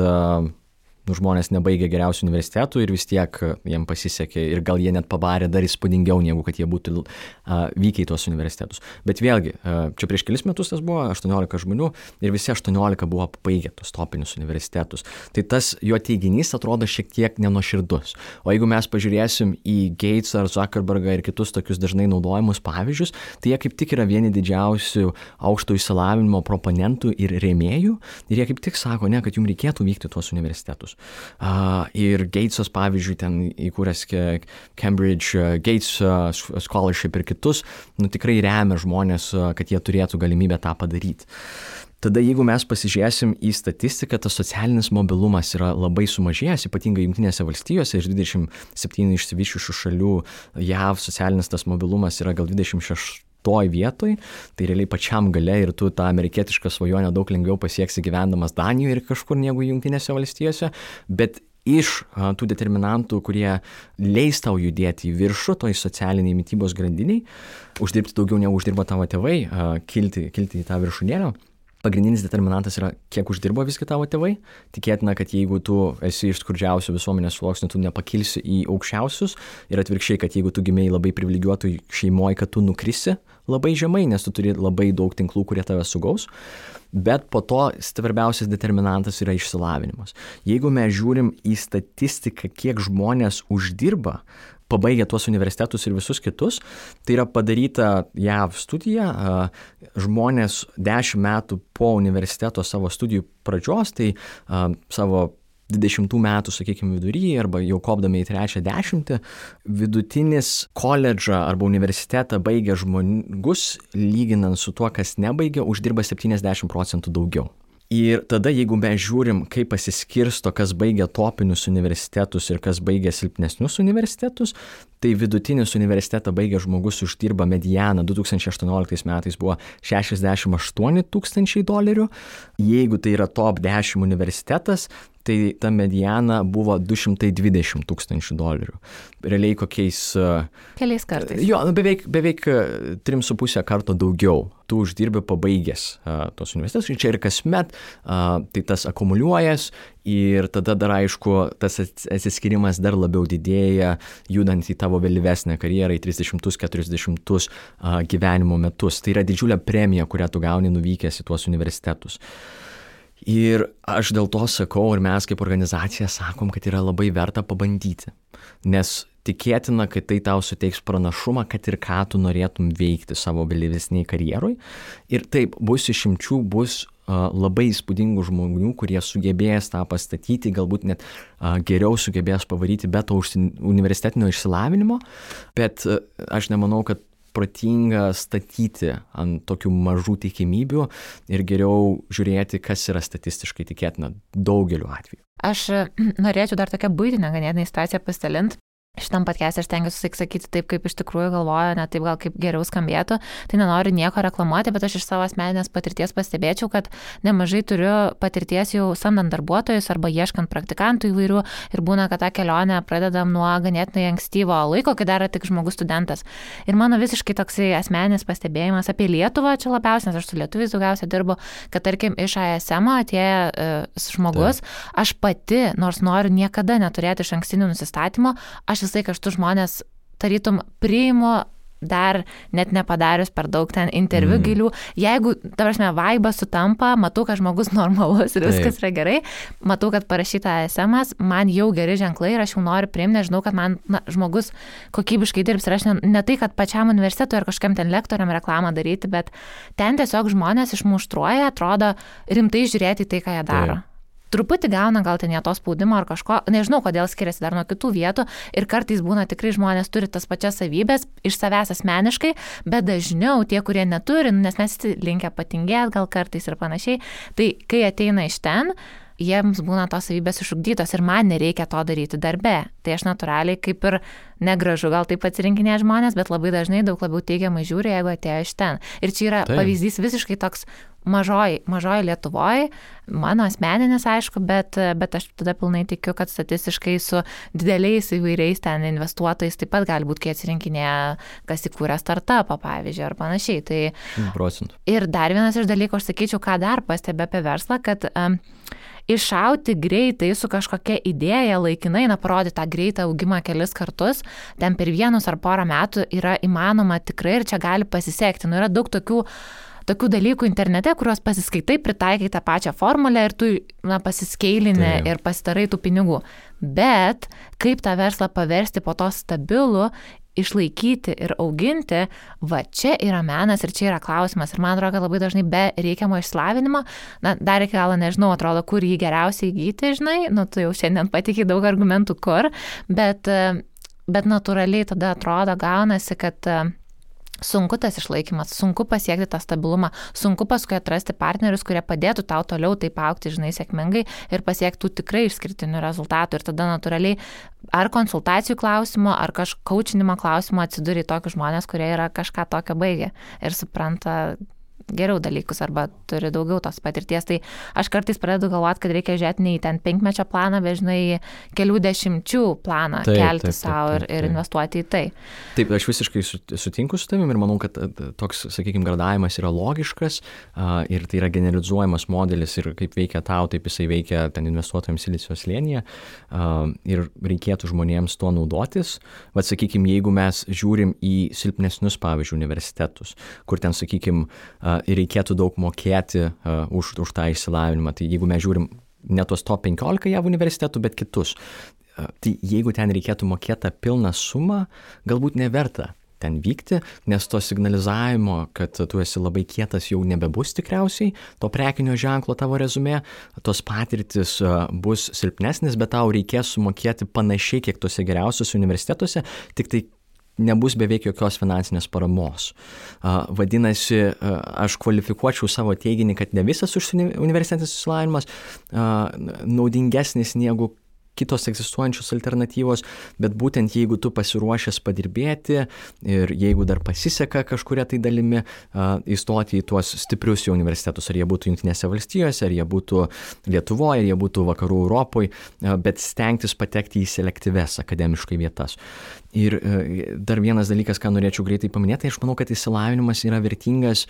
žmonės nebaigia geriausių universitetų ir vis tiek jiem pasisekė ir gal jie net pabarė dar įspūdingiau, negu kad jie būtų vykę į tuos universitetus. Bet vėlgi, čia prieš kelis metus tas buvo 18 žmonių ir visi 18 buvo pabaigę tos topinius universitetus. Tai tas jo teiginys atrodo šiek tiek nenuoširdus. O jeigu mes pažiūrėsim į Gates ar Zuckerbergą ir kitus tokius dažnai naudojamus pavyzdžius, tai jie kaip tik yra vieni didžiausių aukšto išsilavinimo proponentų ir rėmėjų ir jie kaip tik sako, ne, kad jums reikėtų vykti tuos universitetus. Ir Gatesas, pavyzdžiui, ten įkūręs Cambridge Gates Scholarship ir kitus, tikrai remia žmonės, kad jie turėtų galimybę tą padaryti. Tada jeigu mes pasižiūrėsim į statistiką, tas socialinis mobilumas yra labai sumažėjęs, ypatingai Jungtinėse valstijose, iš 27 išsivysčiusių šalių JAV socialinis tas mobilumas yra gal 26 vietoj, tai realiai pačiam gale ir tu tą amerikietišką svajonę daug lengviau pasieksi gyvendamas Danijoje ir kažkur negu Jungtinėse valstijose, bet iš tų determinantų, kurie leis tau judėti į viršų, toj socialiniai mitybos grandiniai, uždirbti daugiau negu uždirba tavo tėvai, kilti į tą viršūnėlę. Pagrindinis determinantas yra, kiek uždirba visgi tavo tėvai. Tikėtina, kad jeigu tu esi iš skurdžiausių visuomenės sluoksnių, tu nepakilsi į aukščiausius ir atvirkščiai, kad jeigu tu gimėjai labai privilegijuotų šeimoje, kad tu nukrisi labai žemai, nes tu turi labai daug tinklų, kurie tave sugaus. Bet po to svarbiausias determinantas yra išsilavinimas. Jeigu mes žiūrim į statistiką, kiek žmonės uždirba, pabaigę tuos universitetus ir visus kitus, tai yra padaryta JAV studija, žmonės 10 metų po universiteto savo studijų pradžios, tai savo 20 metų, sakykime, viduryje arba jau kopdami į 3-10, vidutinis koledžą arba universitetą baigę žmogus, lyginant su tuo, kas nebaigė, uždirba 70% daugiau. Ir tada, jeigu mes žiūrim, kaip pasiskirsto, kas baigia topinius universitetus ir kas baigia silpnesnius universitetus, tai vidutinis universitetą baigę žmogus uždirba medianą 2018 metais buvo $68,000. Jeigu tai yra top 10 universitetas, tai ta mediana buvo $220,000. Realiai kokiais... Keliais kartais. Jo, beveik 3,5 karto daugiau. Tu uždirbi pabaigęs tos universitetus. Čia ir kasmet tai tas akumuliuojas ir tada dar aišku, tas atsiskirimas dar labiau didėja, judant į tavo vėlyvesnę karjerą, į 30-40 gyvenimo metus. Tai yra didžiulė premija, kurią tu gauni nuvykęs į tuos universitetus. Ir aš dėl to sakau, ir mes kaip organizacija sakom, kad yra labai verta pabandyti, nes tikėtina, kad tai tau suteiks pranašumą, kad ir ką tu norėtum veikti savo vėlyvesniai karjeroj. Ir taip, bus išimčių, bus labai įspūdingų žmonių, kurie sugebės tą pastatyti, galbūt net geriau sugebės pavaryti be to universitetinio išsilavinimo, bet aš nemanau, kad protinga statyti ant tokių mažų tikimybių ir geriau žiūrėti, kas yra statistiškai tikėtina daugeliu atveju. Aš norėčiau dar tokią buitinę ganėtinai situaciją pasidalinti. Šitam podcast'e aš stengiuosi sakyti taip, kaip iš tikrųjų galvoju, ne taip gal kaip geriau skambėtų, tai nenoriu nieko reklamuoti, bet aš iš savo asmeninės patirties pastebėčiau, kad nemažai turiu patirties jau samdant darbuotojus arba ieškant praktikantų įvairių ir būna, kad tą kelionę pradedam nuo ganėtinai ankstyvo laiko, kai dar tik žmogus studentas. Ir mano visiškai toksai asmeninis pastebėjimas apie Lietuvą, čia labiausiai, nes aš su lietuviais daugiausiai dirbu, kad tarkim iš ASM atėjęs žmogus, aš pati, nors noriu niekada neturėti iš ankstinių nusistatymų, aš visai kažtų žmonės tarytum priimu dar net nepadarius per daug ten interviu gilių. Jeigu, ta prasme, vaibas sutampa, matau, kad žmogus normalus ir viskas yra gerai, matau, kad parašyta SMS, man jau geri ženklai ir aš jau noriu priimti, nes žinau, kad man žmogus kokybiškai dirbs ir aš ne tai, kad pačiam universitetui ar kažkam ten lektoriam reklamą daryti, bet ten tiesiog žmonės išmuštruoja, atrodo rimtai žiūrėti į tai, ką jie daro. Truputį gauna gal ten jie to spaudimo ar kažko, nežinau, kodėl skiriasi dar nuo kitų vietų ir kartais būna tikrai žmonės turi tas pačias savybės iš savęs asmeniškai, bet dažniau tie, kurie neturi, nes mes linkę patingėti gal kartais ir panašiai, tai kai ateina iš ten, jiems būna tos savybės išugdytos ir man nereikia to daryti darbe. Tai aš natūraliai kaip ir negražu gal taip atsirinkinėti žmonės, bet labai dažnai daug labiau teigiamai žiūri, jeigu atėjo iš ten. Ir čia yra pavyzdys visiškai toks mažoji Lietuvoje, mano asmeninis aišku, bet aš tada pilnai tikiu, kad statistiškai su dideliais įvairiais ten investuotojais taip pat gali būti, kai atsirinkinėja, kas įkūrė startupą, pavyzdžiui, ar panašiai. Tai 100%. Ir dar vienas iš dalykų, aš sakyčiau, ką dar pastebė apie verslą, kad iššauti greitai su kažkokia idėja laikinai, parodyti tą greitą augimą kelis kartus, ten per vienus ar porą metų yra įmanoma tikrai ir čia gali pasisekti. Yra daug tokių dalykų internete, kuriuos pasiskaitai, pritaikai tą pačią formulę ir tu pasiskeilini ir pasidarai tų pinigų. Bet kaip tą verslą paversti po to stabilų, išlaikyti ir auginti, va čia yra menas ir čia yra klausimas. Ir man atrodo, kad labai dažnai be reikiamo išsilavinimo, dar iki galo nežinau, atrodo, kur jį geriausiai įgyti, žinai, tu jau šiandien patikiai daug argumentų kur, bet natūraliai tada atrodo, gaunasi, kad sunku tas išlaikymas, sunku pasiekti tą stabilumą, sunku paskui atrasti partnerius, kurie padėtų tau toliau taip augti, žinai, sėkmingai ir pasiektų tikrai išskirtinių rezultatų. Ir tada natūraliai ar konsultacijų klausimo, ar kaučinimo klausimo atsiduri tokius žmonės, kurie yra kažką tokio baigę ir supranta geriau dalykus arba turi daugiau tos patirties. Tai aš kartais pradedu galvoti, kad reikia žiūrėti ne į ten 5-mečio planą, bet žinai, kelių dešimčių planą kelti savo ir investuoti į tai. Taip, aš visiškai sutinku su tavim ir manau, kad toks, sakykime, gradavimas yra logiškas ir tai yra generalizuojamas modelis ir kaip veikia tau, taip jisai veikia ten investuotojams Silicio slėnyje ir reikėtų žmonėms tuo naudotis. Vat, sakykime, jeigu mes žiūrim į silpnesnius, pavyzdžiui, universitetus, kur ten, sakykime, reikėtų daug mokėti už tą išsilavinimą, tai jeigu mes žiūrim ne tos top 15 JAV universitetų, bet kitus, tai jeigu ten reikėtų mokėti pilną sumą, galbūt neverta ten vykti, nes to signalizavimo, kad tu esi labai kietas, jau nebebus tikriausiai, to prekinio ženklo tavo rezumė, tos patirtis bus silpnesnis, bet tau reikės sumokėti panašiai, kiek tuose geriausiuose universitetuose, tik tai nebus beveik jokios finansinės paramos. Vadinasi, aš kvalifikuočiau savo teiginį, kad ne visas universitetinis išsilavinimas naudingesnis negu kitos egzistuojančios alternatyvos, bet būtent jeigu tu pasiruošęs padirbėti ir jeigu dar pasiseka kažkuria tai dalimi įstoti į tuos stiprius jau universitetus, ar jie būtų Jungtinėse valstijose, ar jie būtų Lietuvoje, ar jie būtų Vakarų Europoje, bet stengtis patekti į selektyves akademiškai vietas. Ir dar vienas dalykas, ką norėčiau greitai paminėti, aš manau, kad išsilavinimas yra vertingas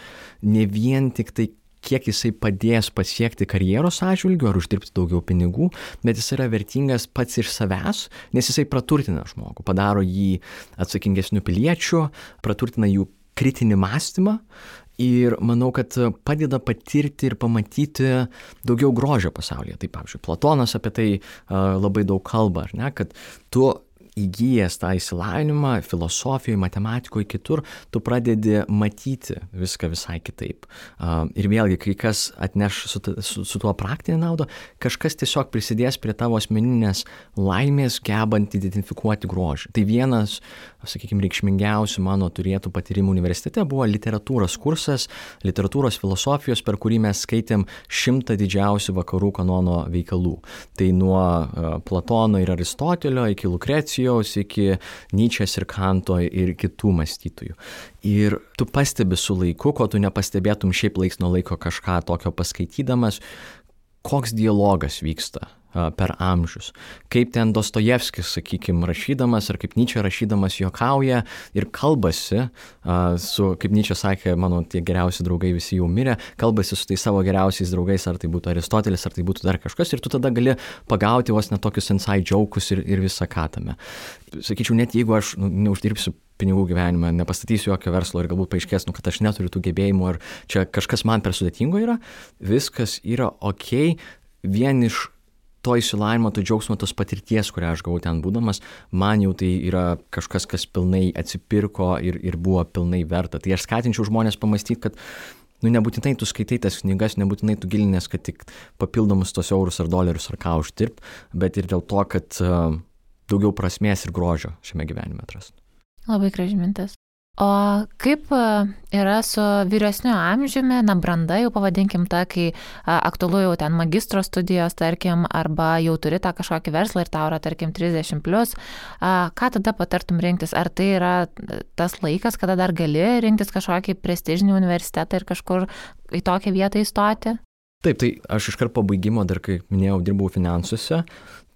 ne vien tik tai kiek jisai padės pasiekti karjeros atžvilgiu ar uždirbti daugiau pinigų, bet jis yra vertingas pats iš savęs, nes jisai praturtina žmogų, padaro jį atsakingesniu piliečiu, praturtina jų kritinį mąstymą ir manau, kad padeda patirti ir pamatyti daugiau grožio pasaulyje. Tai, pavyzdžiui, Platonas apie tai labai daug kalba, ar ne, kad tu įgyjęs tą išsilavinimą filosofijoje, matematikoje, kitur, tu pradedi matyti viską visai kitaip. Ir vėlgi, kai kas atneš su tuo praktinę naudą, kažkas tiesiog prisidės prie tavo asmeninės laimės, gebant identifikuoti grožį. Tai vienas, sakykime, reikšmingiausių mano turėtų patyrimų universitete buvo literatūros kursas, literatūros filosofijos, per kurį mes skaitėm 100 didžiausių vakarų kanono veikalų. Tai nuo Platono ir Aristotelio iki Lukrecijos, iki Nyčės ir Kanto ir kitų mąstytojų. Ir tu pastebi su laiku, ko tu nepastebėtum šiaip laiks nuo laiko kažką tokio paskaitydamas, koks dialogas vyksta per amžius. Kaip ten Dostojevskis, sakykime, rašydamas, ar kaip Nyčė rašydamas juokauja ir kalbasi su, kaip Nyčė sakė, mano tie geriausi draugai visi jau mirė, kalbasi su tai savo geriausiais draugais, ar tai būtų Aristotelis, ar tai būtų dar kažkas, ir tu tada gali pagauti vos net tokius inside joke'us ir visą ką tame. Sakyčiau, net jeigu aš neuždirbsiu pinigų gyvenime, nepastatysiu jokio verslo ir galbūt paaiškės, kad aš neturiu tų gebėjimų ar čia kažkas man per sudėtingo yra, viskas yra okei, vien iš to išsilavinimo, to džiaugsmo, tos patirties, kurią aš gavau ten būdamas, man jau tai yra kažkas, kas pilnai atsipirko ir buvo pilnai verta. Tai aš skatinčiau žmonės pamastyti, kad nebūtinai tu skaitai tas knygas, nebūtinai tu gilinės, kad tik papildomus tos eurus ar dolerius ar ką uždirbt, bet ir dėl to, kad daugiau prasmės ir grožio šiame gyvenime atrasti. Labai graži mintis. O kaip yra su vyresniu amžiumi, branda jau pavadinkim tą, kai aktualu jau ten magistro studijos, tarkim, arba jau turi tą kažkokį verslą ir tau yra, tarkim, 30+, ką tada patartum rinktis? Ar tai yra tas laikas, kada dar gali rinktis kažkokį prestižinį universitetą ir kažkur į tokią vietą įstoti? Taip, tai aš iškart po baigimo, dar kaip minėjau, dirbau finansuose.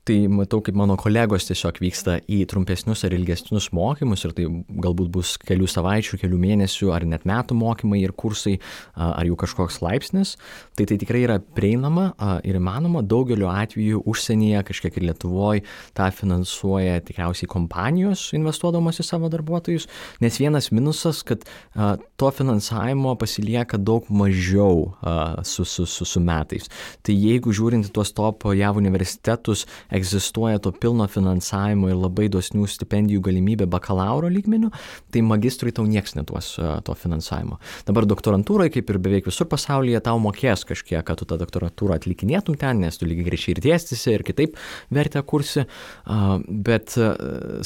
Tai matau, kaip mano kolegos tiesiog vyksta į trumpesnius ar ilgesnius mokymus ir tai galbūt bus kelių savaičių, kelių mėnesių ar net metų mokymai ir kursai ar jau kažkoks laipsnis. Tai tikrai yra prieinama ir įmanoma. Daugeliu atveju užsienyje, kažkiek ir Lietuvoje, tą finansuoja tikriausiai kompanijos investuodamos į savo darbuotojus, nes vienas minusas, kad to finansavimo pasilieka daug mažiau su metais. Tai jeigu žiūrint tuos top JAV universitetus, egzistuoja to pilno finansavimo ir labai dosnių stipendijų galimybė bakalauro lygmeniu, tai magistrui tau nieks neduos to finansavimo. Dabar doktorantūrai, kaip ir beveik visur pasaulyje, tau mokės kažkiek, kad tu tą doktorantūrą atlikinėtum ten, nes tu lygiai greičiai ir dėstysi ir kitaip vertę kursi, bet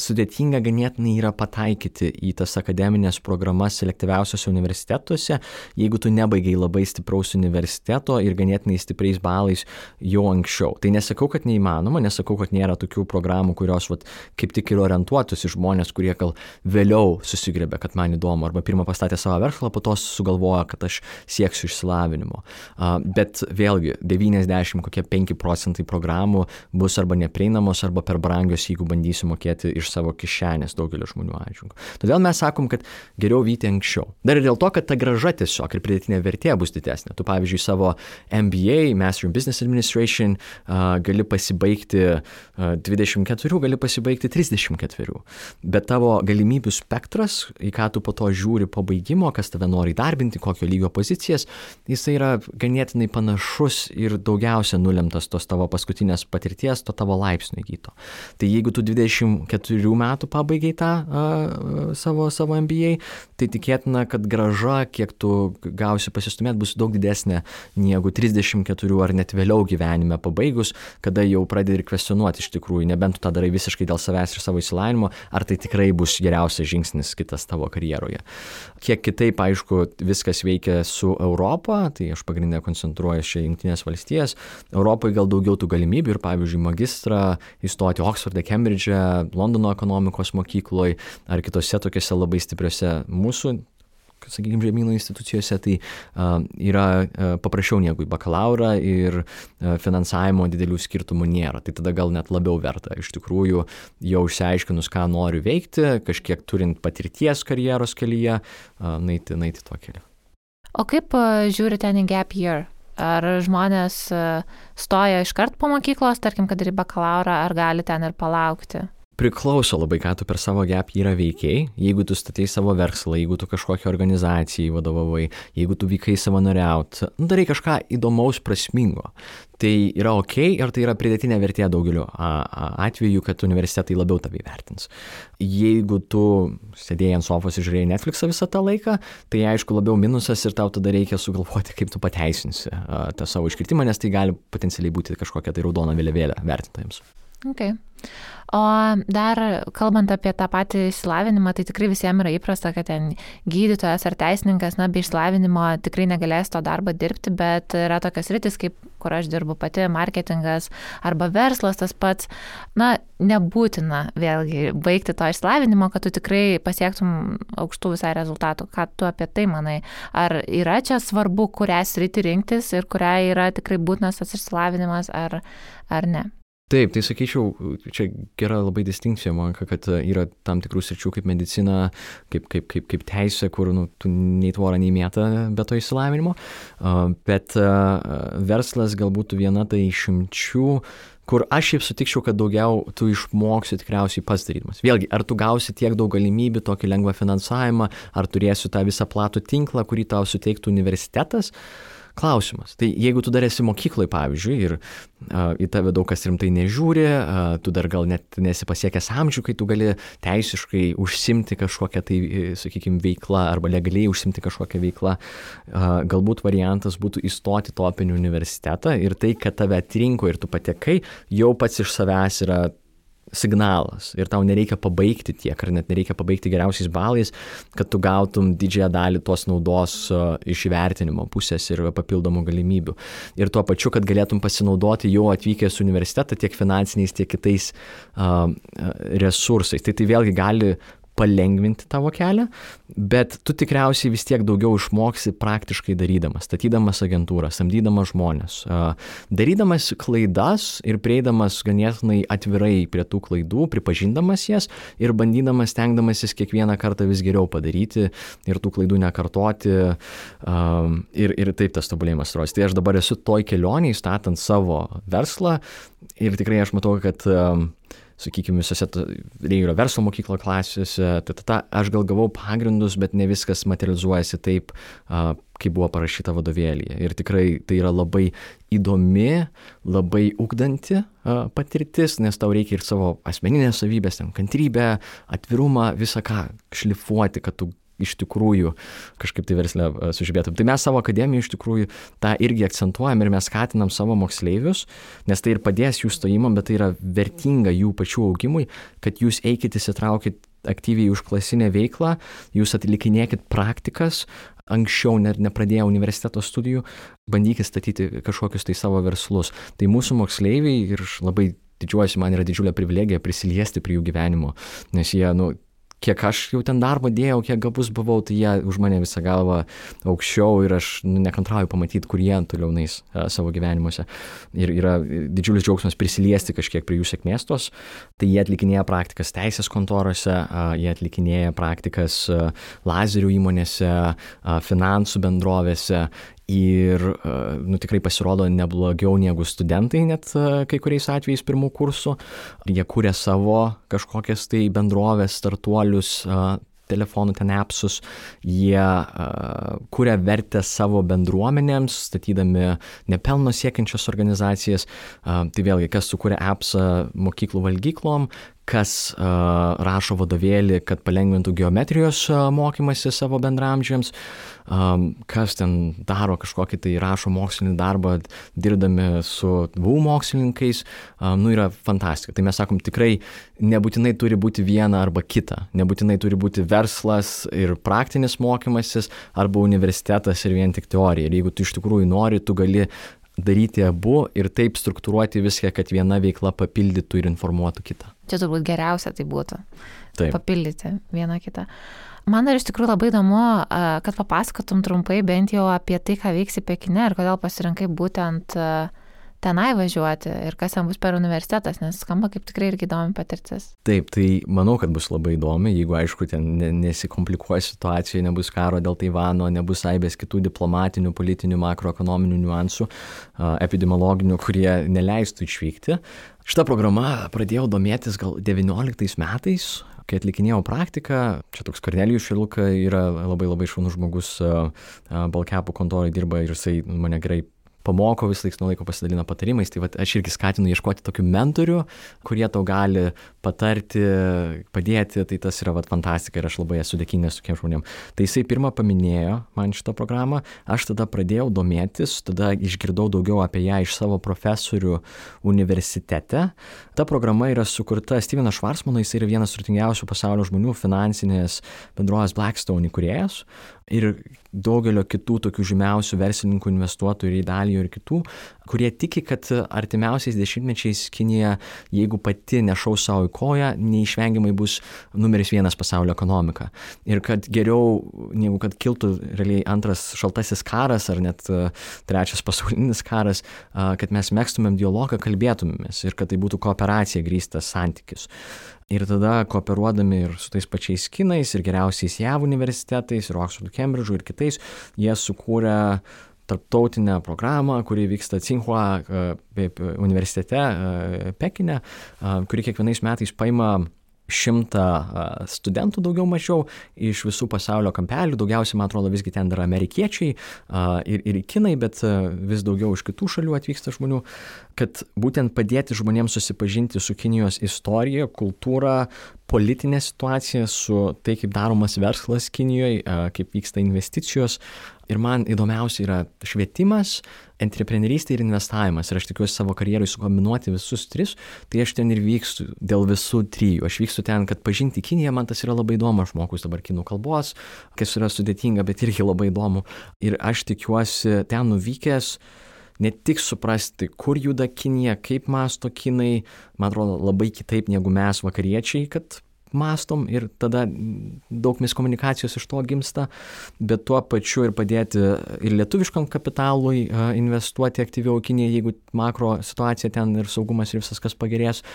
sudėtinga ganėtinai yra pataikyti į tas akademinės programas selektyviausiose universitetuose, jeigu tu nebaigiai labai stipraus universiteto ir ganėtinai stipriais balais jau anksčiau. Tai nesakau, kad neįmanoma, nesakau, nesakau, kad nėra tokių programų, kurios kaip tik ir orientuotus į žmonės, kurie gal vėliau susigrėbė, kad man įdomu, arba pirmą pastatė savo verslą, po to sugalvoja, kad aš sieksiu išsilavinimo. Bet vėlgi 95% programų bus arba neprieinamos, arba per brangios, jeigu bandysiu mokėti iš savo kišenės daugelio žmonių atžvilgiu. Todėl mes sakom, kad geriau vyti anksčiau. Dar ir dėl to, kad ta grąža tiesiog ir pridėtinė vertė bus didesnė. Tu pavyzdžiui savo MBA, Master in Business Administration, gali pasibaigti 24, gali pasibaigti 34. Bet tavo galimybių spektras, į ką tu po to žiūri po baigimo, kas tave nori įdarbinti, kokio lygio pozicijas, jisai yra ganėtinai panašus ir daugiausia nulemtas tos tavo paskutinės patirties, to tavo laipsnio įgyto. Tai jeigu tu 24 metų pabaigai tą savo MBA, tai tikėtina, kad grąža, kiek tu gausi pasistumėti, bus daug didesnė negu 34 ar net vėliau gyvenime pabaigus, kada jau pradedi ir kvestionuoti iš tikrųjų, nebent tu tą darai visiškai dėl savęs ir savo išsilavinimo, ar tai tikrai bus geriausias žingsnis kitas tavo karjeroje. Kiek kitaip, aišku, viskas veikia su Europa, tai aš pagrindinę koncentruoju čia Jungtinės valstijas. Europoje gal daugiau tų galimybių ir, pavyzdžiui, magistrą įstoti Oksforde, Kembridže, Londono ekonomikos mokykloje ar kitose tokiose labai stipriose mūsų, sakykime, žemynų institucijose, tai yra paprasčiau negu į bakalaurą ir finansavimo didelių skirtumų nėra. Tai tada gal net labiau verta. Iš tikrųjų, jau išsiaiškinus, ką noriu veikti, kažkiek turint patirties karjeros kelyje, naiti tuo keliu. O kaip žiūri ten į gap year? Ar žmonės stoja iškart po mokyklos, tarkim, kad ir į bakalaurą, ar gali ten ir palaukti? Priklauso labai, ką tu per savo gap yearą veikiai. Jeigu tu statei savo verslą, jeigu tu kažkokią organizaciją vadovavai, jeigu tu vykai savanoriauti, darai kažką įdomaus, prasmingo. Tai yra ok ir tai yra pridėtinė vertė daugeliu atveju, kad universitetai labiau tave įvertins. Jeigu tu sėdėjai ant sofos ir žiūrėjai Netflixą visą tą laiką, tai aišku labiau minusas ir tau tada reikia sugalvoti, kaip tu pateisinsi tą savo iškritimą, nes tai gali potencialiai būti kažkokia tai raudona vėliavėlė vertintojams. Okay. O dar kalbant apie tą patį išsilavinimą, tai tikrai visiems yra įprasta, kad ten gydytojas ar teisininkas, be išsilavinimo tikrai negalės to darbo dirbti, bet yra tokios sritis, kaip kur aš dirbu pati, marketingas arba verslas tas pats, nebūtina vėlgi baigti to išsilavinimo, kad tu tikrai pasiektum aukštų visai rezultatų. Ką tu apie tai manai? Ar yra čia svarbu, kurią sritį rinktis ir kurią yra tikrai būtinas tas išsilavinimas ar ne? Taip, tai sakyčiau, čia gera labai distinkcija, man, kad yra tam tikrų sričių kaip medicina, kaip teisė, kur tu nei tvorą, nei mėtą be to išsilavinimo, bet verslas galbūt viena tai išimčių, kur aš šiaip sutikčiau, kad daugiau tu išmoksi tikriausiai pats darydamas. Vėlgi, ar tu gausi tiek daug galimybių, tokį lengvą finansavimą, ar turėsi tą visą platų tinklą, kurį tau suteiktų universitetas? Klausimas. Tai jeigu tu dar esi mokykloje, pavyzdžiui, ir į tave daug kas rimtai nežiūri, tu dar gal net nesi pasiekęs amžių, kai tu gali teisiškai užsimti kažkokią tai, sakykime, veiklą arba legaliai užsimti kažkokią veiklą, galbūt variantas būtų įstoti topinį universitetą ir tai, kad tave atrinko ir tu patekai, jau pats iš savęs yra signalas ir tau nereikia pabaigti tiek, ar net nereikia pabaigti geriausiais balais, kad tu gautum didžiąją dalį tos naudos iš įvertinimo pusės ir papildomų galimybių. Ir tuo pačiu, kad galėtum pasinaudoti jau atvykęs į universitetą tiek finansiniais, tiek kitais resursais. Tai vėlgi gali palengvinti tavo kelią, bet tu tikriausiai vis tiek daugiau išmoksi praktiškai darydamas, statydamas agentūrą, samdydamas žmonės, darydamas klaidas ir prieidamas ganėtinai atvirai prie tų klaidų, pripažindamas jas ir bandydamas, stengdamasis kiekvieną kartą vis geriau padaryti ir tų klaidų nekartoti ir taip tas tobulėjimas rodos. Tai aš dabar esu toj kelionėj, statant savo verslą ir tikrai aš matau, kad sakykime, visose Reigerio verslo mokyklo klasėse, aš gal gavau pagrindus, bet ne viskas materializuojasi taip, kaip buvo parašyta vadovėlyje. Ir tikrai tai yra labai įdomi, labai ugdanti patirtis, nes tau reikia ir savo asmeninės savybės, kantrybę, atvirumą, visą ką šlifuoti, kad tu iš tikrųjų kažkaip tai versle sužibėtum. Tai mes savo akademijoje iš tikrųjų tą irgi akcentuojam ir mes skatinam savo moksleivius, nes tai ir padės jų stojimam, bet tai yra vertinga jų pačių augimui, kad jūs eikit, įsitraukit aktyviai užklasinę veiklą, jūs atlikinėkit praktikas, anksčiau nepradėję universiteto studijų, bandykit statyti kažkokius tai savo verslus. Tai mūsų moksleiviai ir labai didžiuojuosi, man yra didžiulė privilegija prisiliesti prie jų gyvenimo, nes jie, kiek aš jau ten darbo dėjau, kiek gabus buvau, tai jie už mane visą galvą aukščiau ir aš nekantrauju pamatyti, kur jie toliau nais savo gyvenimuose. Ir yra didžiulis džiaugsmas prisiliesti kažkiek prie jų sėkmės tos. Tai jie atlikinėja praktikas teisės kontorose, jie atlikinėja praktikas lazerių įmonėse, finansų bendrovėse. Ir tikrai pasirodo neblogiau negu studentai net kai kuriais atvejais pirmų kursų. Jie kuria savo kažkokias tai bendrovės, startuolius, telefonų ten appsus, jie kuria vertę savo bendruomenėms, statydami nepelno siekiančias organizacijas. Tai vėlgi, kas sukuria appsą mokyklų valgyklom, kas rašo vadovėlį, kad palengvintų geometrijos mokymasi savo bendramžiams, kas ten daro kažkokį tai rašo mokslinį darbą, dirbdami su VU mokslininkais, yra fantastika. Tai mes sakom, tikrai nebūtinai turi būti viena arba kita, nebūtinai turi būti verslas ir praktinis mokymasis arba universitetas ir vien tik teorija. Ir jeigu tu iš tikrųjų nori, tu gali daryti abu ir taip struktūruoti viską, kad viena veikla papildytų ir informuotų kitą. Čia turbūt geriausia tai būtų. Taip. Papildyti vieną kitą. Man dar iš tikrųjų labai įdomu, kad papasakotum trumpai bent jau apie tai, ką veiksi Pekine ir kodėl pasirinkai būtent tenai važiuoti ir kas ten bus per universitetas, nes skamba kaip tikrai irgi įdomi patirtis. Taip, tai manau, kad bus labai įdomi, jeigu aišku ten nesikomplikuoja situacija, nebus karo dėl Taivano, nebus aibės kitų diplomatinių, politinių, makroekonominių niuansų, epidemiologinių, kurie neleistų išvykti. Šitą programą pradėjau domėtis gal 19 metais, kai atlikinėjau praktiką. Čia toks Kornelijus Šiluka yra labai šaunus žmogus, Balkepų kontorai dirba ir jisai mane gerai pamoko, vis laiks nuo laiko pasidalina patarimais, tai aš irgi skatinu ieškoti tokių mentorių, kurie tau gali patarti, padėti, tai tas yra fantastika ir aš labai esu dėkingas tokiem žmonėm. Tai jisai pirmą paminėjo man šitą programą, aš tada pradėjau domėtis, tada išgirdau daugiau apie ją iš savo profesorių universitete. Ta programa yra sukurta Stevenas Schwarzmanas, jis yra vienas turtingiausių pasaulio žmonių, finansinės bendrovės Blackstone įkūrėjas ir daugelio kitų tokių žymiausių verslininkų, investuotojų ir Idalijo ir kitų, kurie tiki, kad artimiausiais dešimtmečiais Kinija, jeigu pati nešaus savo į koją, neišvengiamai bus numeris 1 pasaulio ekonomika. Ir kad geriau, negu kad kiltų realiai antras šaltasis karas ar net trečias pasaulinis karas, kad mes megztumėm dialogą, kalbėtumėmės ir kad tai būtų kooperacija grįstas santykis. Ir tada kooperuodami ir su tais pačiais kinais ir geriausiais JAV universitetais ir Oxfordu, Cambridge'u ir kitais, jie sukūrė tarptautinę programą, kuri vyksta Tsinghua universitete Pekine, kuri kiekvienais metais paima 100 studentų daugiau mažiau iš visų pasaulio kampelių, daugiausiai, man atrodo, visgi ten yra amerikiečiai ir kinai, bet vis daugiau iš kitų šalių atvyksta žmonių, kad būtent padėti žmonėms susipažinti su Kinijos istorija, kultūra, politinė situacija, su tai, kaip daromas verslas Kinijoje, kaip vyksta investicijos. Ir man įdomiausia yra švietimas, entrepreneurystė ir investavimas. Ir aš tikiuosi savo karjerui sukombinuoti visus 3, tai aš ten ir vykstu dėl visų 3. Aš vykstu ten, kad pažinti Kiniją, man tas yra labai įdomu, aš mokaus dabar kinų kalbos, kas yra sudėtinga, bet irgi labai įdomu. Ir aš tikiuosi ten nuvykęs ne tik suprasti, kur juda Kinija, kaip mąsto kinai, man atrodo labai kitaip negu mes vakariečiai, kad mąstom ir tada daug miskomunikacijos iš to gimsta, bet tuo pačiu ir padėti ir lietuviškam kapitalui investuoti aktyviau Kinijai, jeigu makro situacija ten ir saugumas ir visas kas pagerės,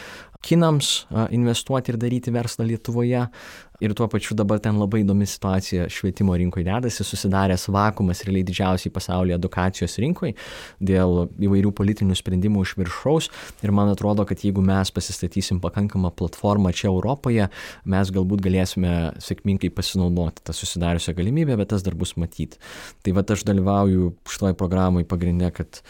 kinams investuoti ir daryti verslą Lietuvoje. Ir tuo pačiu dabar ten labai įdomi situacija švietimo rinkoje dedasi, susidaręs vakuumas realiai didžiausiai pasaulyje edukacijos rinkoje dėl įvairių politinių sprendimų iš viršaus. Ir man atrodo, kad jeigu mes pasistatysim pakankamą platformą čia Europoje, mes galbūt galėsime sėkmingai pasinaudoti tą susidariusią galimybę, bet tas dar bus matyti. Tai aš dalyvauju šitoj programai pagrinde, kad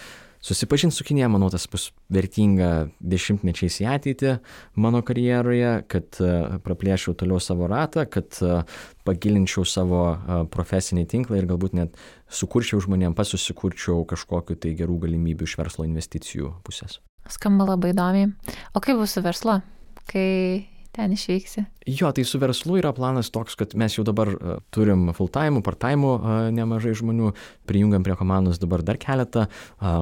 susipažinti su Kinija, manau, tas bus vertinga dešimtmečiais į ateitį mano karjeroje, kad praplėšiau toliau savo ratą, kad pagilinčiau savo profesinį tinklą ir galbūt net sukurčiau žmonėm, susikurčiau kažkokiu tai gerų galimybių iš verslo investicijų pusės. Skamba labai įdomiai. O kaip bus su verslu, kai ten išvyksi? Jo, tai su verslu yra planas toks, kad mes jau dabar turim full-time, part-time nemažai žmonių, prijungiam prie komandos dabar dar keletą,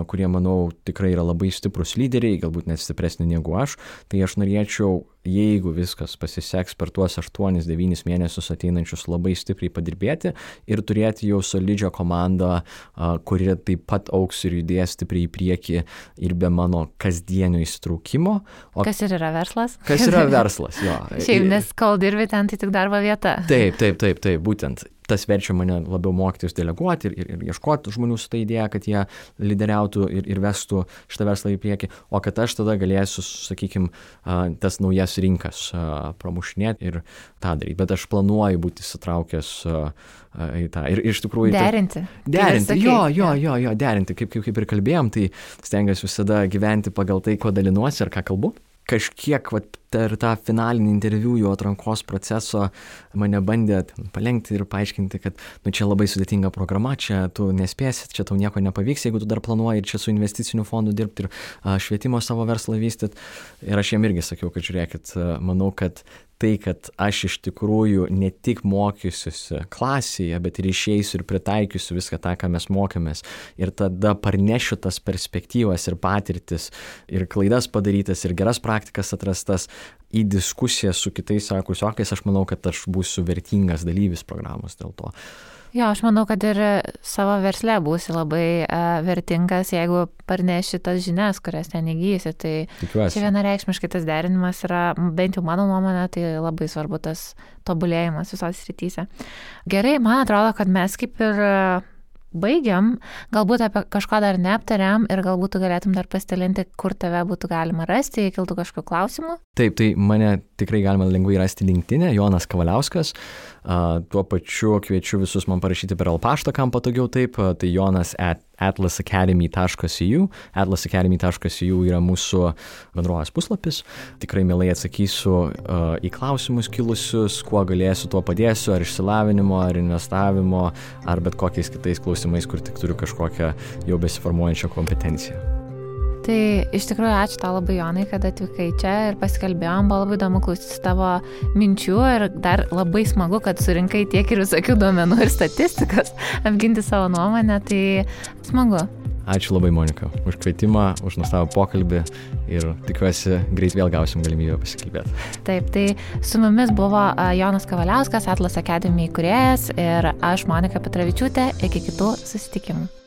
kurie, manau, tikrai yra labai stiprus lyderiai, galbūt net stipresni negu aš. Tai aš norėčiau, jeigu viskas pasiseks per tuos 8-9 mėnesius ateinančius, labai stipriai padirbėti ir turėti jau solidžią komandą, kuri taip pat augs ir judės stipriai į priekį ir be mano kasdienio įsitraukimo. Kas ir yra verslas? Kas yra verslas, jo. Šiaip, nes kol dirbi ten, tai tik darbo vieta. Taip, būtent. Tas verčia mane labiau mokytis deleguoti ir ieškoti žmonių su ta idėja, kad jie lyderiautų ir vestų šitą verslą į priekį, o kad aš tada galėsiu, sakykime, tas naujas rinkas pramušinėti ir tą daryti. Bet aš planuoju būti įsitraukęs į tą. Ir iš tikrųjų... Derinti. Derinti. Kaip ir kalbėjom, tai stengiuosi visada gyventi pagal tai, ko dalinuosi ir ką kalbu. Kažkiek per tą finalinį interviu jo atrankos proceso mane bandė palengti ir paaiškinti, kad čia labai sudėtinga programa, čia tu nespėsi, čia tau nieko nepavyks, jeigu tu dar planuoji čia su investiciniu fondu dirbti ir švietimo savo verslą vystyti. Ir aš jiem irgi sakiau, kad žiūrėkit, manau, kad tai, kad aš iš tikrųjų ne tik mokysiuosi klasėje, bet ir išeisiu ir pritaikysiu viską tą, ką mes mokėmės. Ir tada parnešiu tas perspektyvas ir patirtis, ir klaidas padarytas, ir geras praktikas atrastas į diskusiją su kitais kursiokais, aš manau, kad aš būsiu vertingas dalyvis programos dėl to. Jo, aš manau, kad ir savo versle būsi labai vertingas, jeigu parneši tas žinias, kurias ten įgysi. Tai tikiuosi. Čia vienareikšmiškai tas derinimas yra, bent jau mano nuomonė, tai labai svarbu tas tobulėjimas visos srityse. Gerai, man atrodo, kad mes kaip ir baigiam, galbūt apie kažko dar neaptariam ir galbūt tu galėtum dar pasidalinti, kur tave būtų galima rasti, jei kiltų kažkokių klausimų. Taip, tai mane tikrai galima lengvai rasti LinkedIn'e, Jonas Kavaliauskas. Tuo pačiu kviečiu visus man parašyti per paštą, kam patogiau taip, tai jonas@atlasacademy.eu. atlasacademy.eu yra mūsų bendrovės puslapis. Tikrai mielai atsakysiu į klausimus kilusius, kuo galėsiu, tuo padėsiu, ar išsilavinimo, ar investavimo, ar bet kokiais kitais klausimais, kur tik turiu kažkokią jau besiformuojančią kompetenciją. Tai iš tikrųjų ačiū tau labai, Jonai, kad atvykai čia ir pasikalbėjom, buvo labai įdomu klausytis tavo minčių ir dar labai smagu, kad surinkai tiek ir visokių duomenų ir statistikos apginti savo nuomonę, tai smagu. Ačiū labai, Monika, už kvietimą, už nuostabų pokalbį ir tikiuosi greit vėl gausim galimybę pasikalbėti. Taip, tai su mumis buvo Jonas Kavaliauskas, Atlas Academy įkūrėjas ir aš, Monika Petravičiūtė, iki kitų susitikimų.